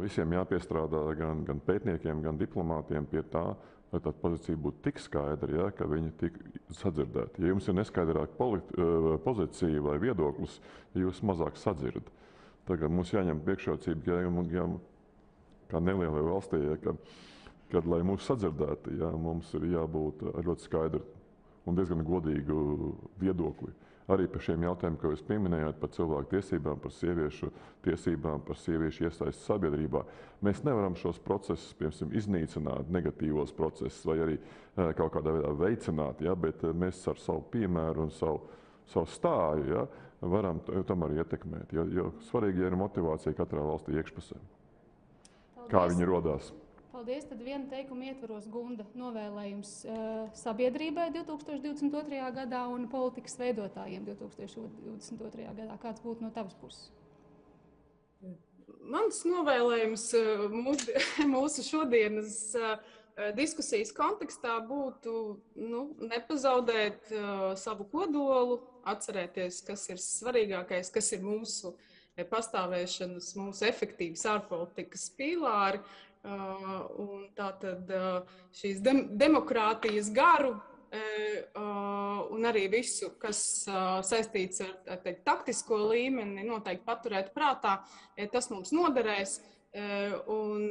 visiem jāpiestrādā gan pētniekiem, gan diplomātiem pie tā, lai tā pozīcija būtu tik skaidra, ja, ka viņi tik sadzirdēti. Ja jums ir neskaidrāka pozīcija vai viedoklis, jūs mazāk sadzirdat. Tagad mums jāņem priekšrocība, kā nelielai valstī, ja, kad, lai mūs sadzirdētu, ja, mums ir jābūt ļoti skaidru un diezgan godīgu viedokli. Arī par šiem jautājumiem, ko jūs pieminējāt, par cilvēku tiesībām, par sieviešu tiesībām, par sieviešu iesaisti sabiedrībā. Mēs nevaram šos procesus, piemēram, iznīcināt, negatīvos procesus vai arī kaut kādā veidā veicināt, ja, bet mēs ar savu piemēru un savu stāju, ja, varam tomēr ietekmēt. Jo svarīgi ir motivācija katrā valstī iekšpusē. Paldies. Kā viņi rodās. Paldies. Tad viena teikuma ietvaros, Gunda, novēlējums sabiedrībai 2022. gadā un politikas veidotājiem 2022. gadā. Kāds būtu no tavas puses? Mans novēlējums mūsu šodienas diskusijas kontekstā būtu nepazaudēt savu kodolu, atcerēties, kas ir svarīgākais, kas ir mūsu pastāvēšanas, mūsu efektīvas ārpolitikas pīlāri. Un tātad šīs demokrātijas garu un arī visu, kas saistīts ar taktisko līmeni, noteikti paturēt prātā, tas mums noderēs. Un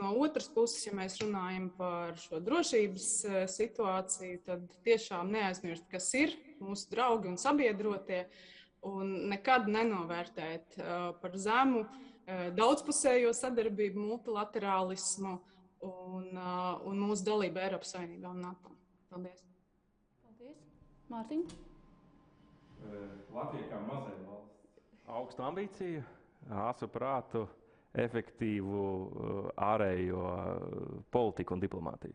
no otras puses, ja mēs runājam par šo drošības situāciju, tad tiešām neaizmirst, kas ir mūsu draugi un sabiedrotie, un nekad nenovērtēt par zemu daudzpusējo sadarbību, multilaterālismu un mūsu dalību Eiropas Savienībā un NATO. Paldies. Paldies. Mārtiņ? Latvija kā mazai valsts. Augstu ambīciju, asu prātu, efektīvu ārējo politiku un diplomātiju.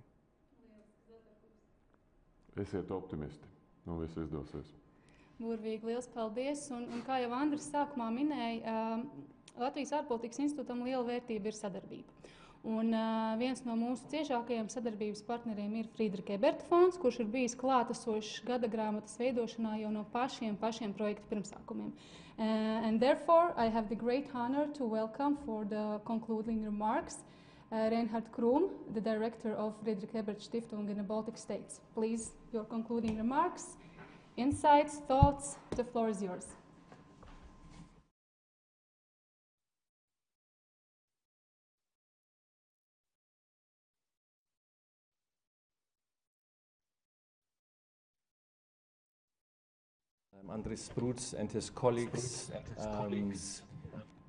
Esiet optimisti, un viss izdosies. Burvīgi, liels paldies. Un kā jau Andris sākumā minēja, Latvijas ārpolitikas institūtam liela vērtība ir sadarbība. Un viens no mūsu ciešākajiem sadarbības partneriem ir Friedrika Eberta fonds, kurš ir bijis klātesošs gada grāmatas veidošanā jau no pašiem projekta pirmsākumiem. And therefore, I have the great honor to welcome for the concluding remarks Reinhard Krum, the director of Friedrich Ebert Stiftung in the Baltic States. Please, your concluding remarks, insights, thoughts, the floor is yours. Andris Sprūds and his colleagues.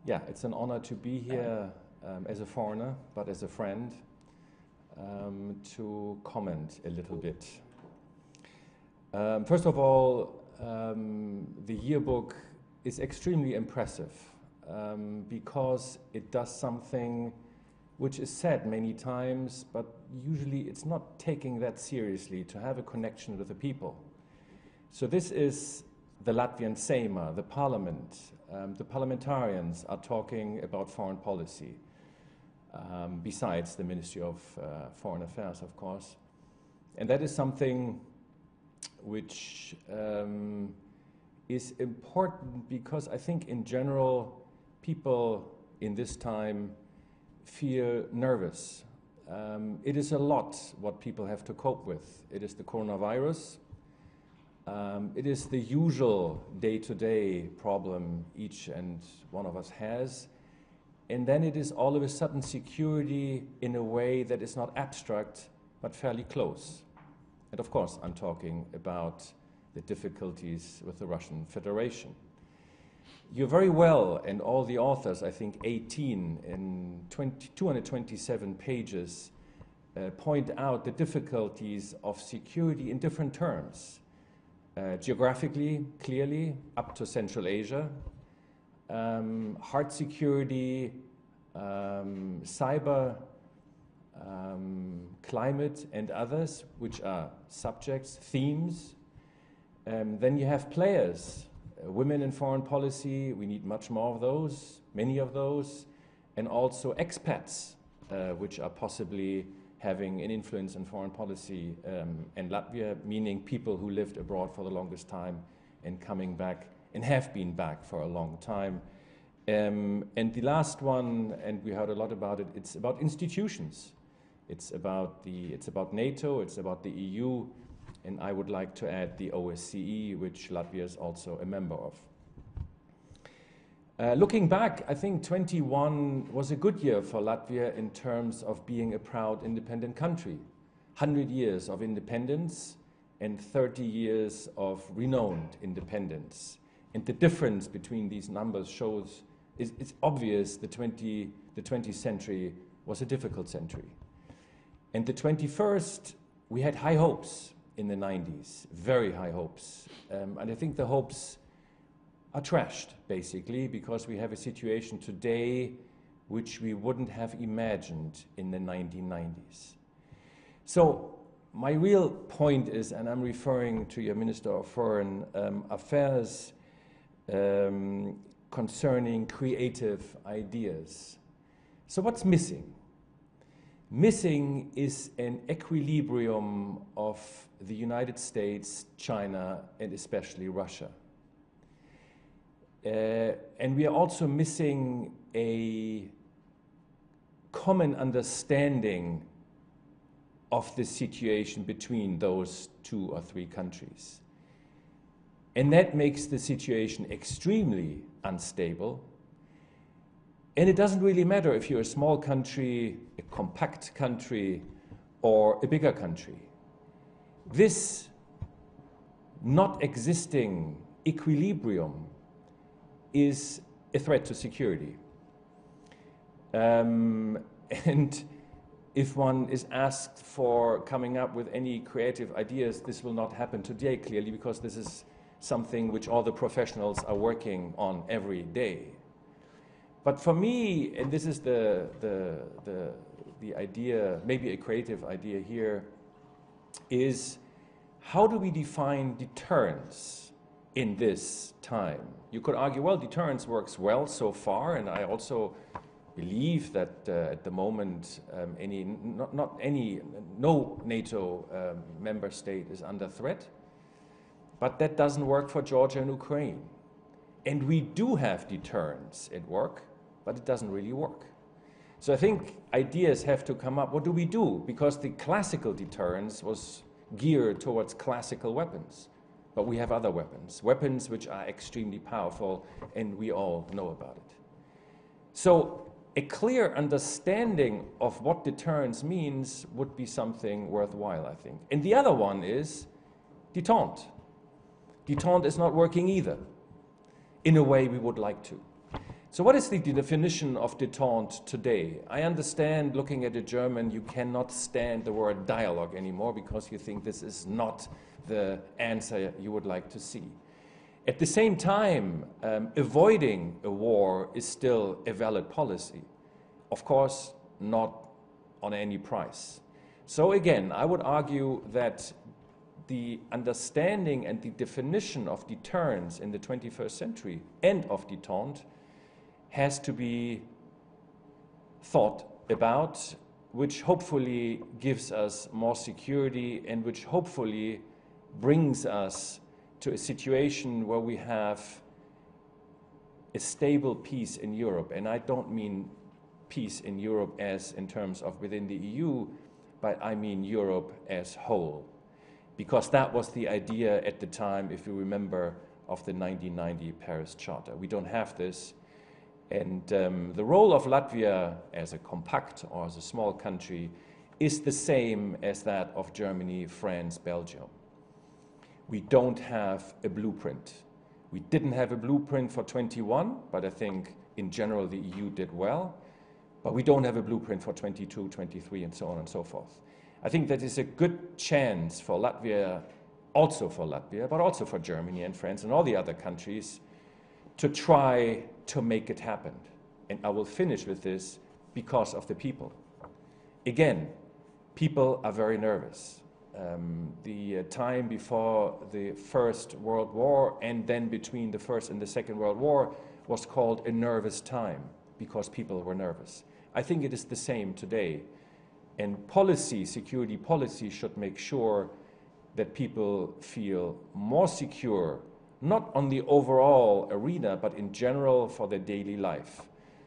Yeah, it's an honor to be here as a foreigner, but as a friend, to comment a little bit. First of all, the yearbook is extremely impressive because it does something which is said many times, but usually it's not taking that seriously, to have a connection with the people. So this is the Latvian Seima, the parliament. The parliamentarians are talking about foreign policy, besides the Ministry of Foreign Affairs, of course. And that is something which is important because I think in general people in this time feel nervous. It is a lot what people have to cope with. It is the coronavirus. It is the usual day-to-day problem each and one of us has. And then it is all of a sudden security in a way that is not abstract, but fairly close. And of course, I'm talking about the difficulties with the Russian Federation. You very well, and all the authors, I think 18 in 227 pages, point out the difficulties of security in different terms. Geographically, clearly, up to Central Asia, hard security, cyber, climate, and others, which are subjects, themes. Then you have players, women in foreign policy, we need much more of those, many of those, and also expats, which are possibly having an influence in foreign policy in Latvia, meaning people who lived abroad for the longest time and coming back and have been back for a long time. And the last one, and we heard a lot about it, it's about institutions. It's about NATO, it's about the EU, and I would like to add the OSCE, which Latvia is also a member of. Looking back, I think 21 was a good year for Latvia in terms of being a proud independent country. 100 years of independence and 30 years of renowned independence. And the difference between these numbers shows, it's obvious the 20th century was a difficult century. And the 21st, we had high hopes in the 90s, very high hopes. And I think the hopes are trashed, basically, because we have a situation today which we wouldn't have imagined in the 1990s. So my real point is, and I'm referring to your Minister of Foreign Affairs concerning creative ideas. So what's missing? Missing is an equilibrium of the United States, China, and especially Russia. And we are also missing a common understanding of the situation between those 2 or 3 countries. And that makes the situation extremely unstable. And it doesn't really matter if you're a small country, a compact country, or a bigger country. This not existing equilibrium is a threat to security. And if one is asked for coming up with any creative ideas, this will not happen today, clearly, because this is something which all the professionals are working on every day. But for me, and this is the idea, maybe a creative idea here, is how do we define deterrence in this time? You could argue, well, deterrence works well so far, and I also believe that at the moment no NATO member state is under threat, but that doesn't work for Georgia and Ukraine. And we do have deterrence at work, but it doesn't really work. So I think ideas have to come up. What do we do? Because the classical deterrence was geared towards classical weapons, but we have other weapons, weapons which are extremely powerful, and we all know about it. So a clear understanding of what deterrence means would be something worthwhile, I think. And the other one is détente. Détente is not working either, in a way we would like to. So what is the definition of détente today? I understand, looking at a German, you cannot stand the word dialogue anymore because you think this is not the answer you would like to see. At the same time, avoiding a war is still a valid policy. Of course, not on any price. So again, I would argue that the understanding and the definition of deterrence in the 21st century and of détente has to be thought about, which hopefully gives us more security and which hopefully brings us to a situation where we have a stable peace in Europe. And I don't mean peace in Europe as in terms of within the EU, but I mean Europe as whole. Because that was the idea at the time, if you remember, of the 1990 Paris Charter. We don't have this. And the role of Latvia as a compact or as a small country is the same as that of Germany, France, Belgium. We don't have a blueprint. We didn't have a blueprint for 21, but I think in general the EU did well. But we don't have a blueprint for 22, 23, and so on and so forth. I think that is a good chance for Latvia, but also for Germany and France and all the other countries to try to make it happen. And I will finish with this because of the people. Again, people are very nervous. The time before the First World War and then between the First and the Second World War was called a nervous time because people were nervous. I think it is the same today. And policy, security policy, should make sure that people feel more secure, not on the overall arena, but in general for their daily life.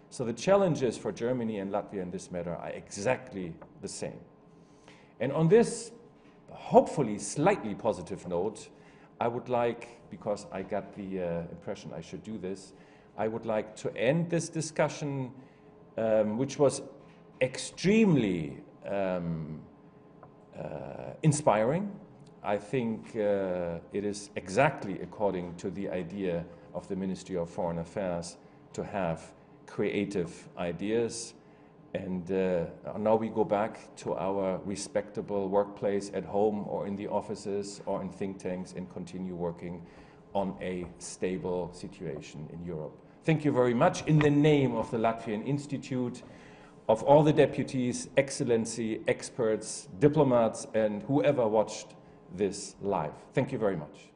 So the challenges for Germany and Latvia in this matter are exactly the same. And on this, hopefully slightly positive note, I would like, because I got the impression I should do this, I would like to end this discussion, which was extremely inspiring. I think it is exactly according to the idea of the Ministry of Foreign Affairs to have creative ideas. And now we go back to our respectable workplace at home or in the offices or in think tanks and continue working on a stable situation in Europe. Thank you very much. In the name of the Latvian Institute, of all the deputies, excellency, experts, diplomats, and whoever watched this live. Thank you very much.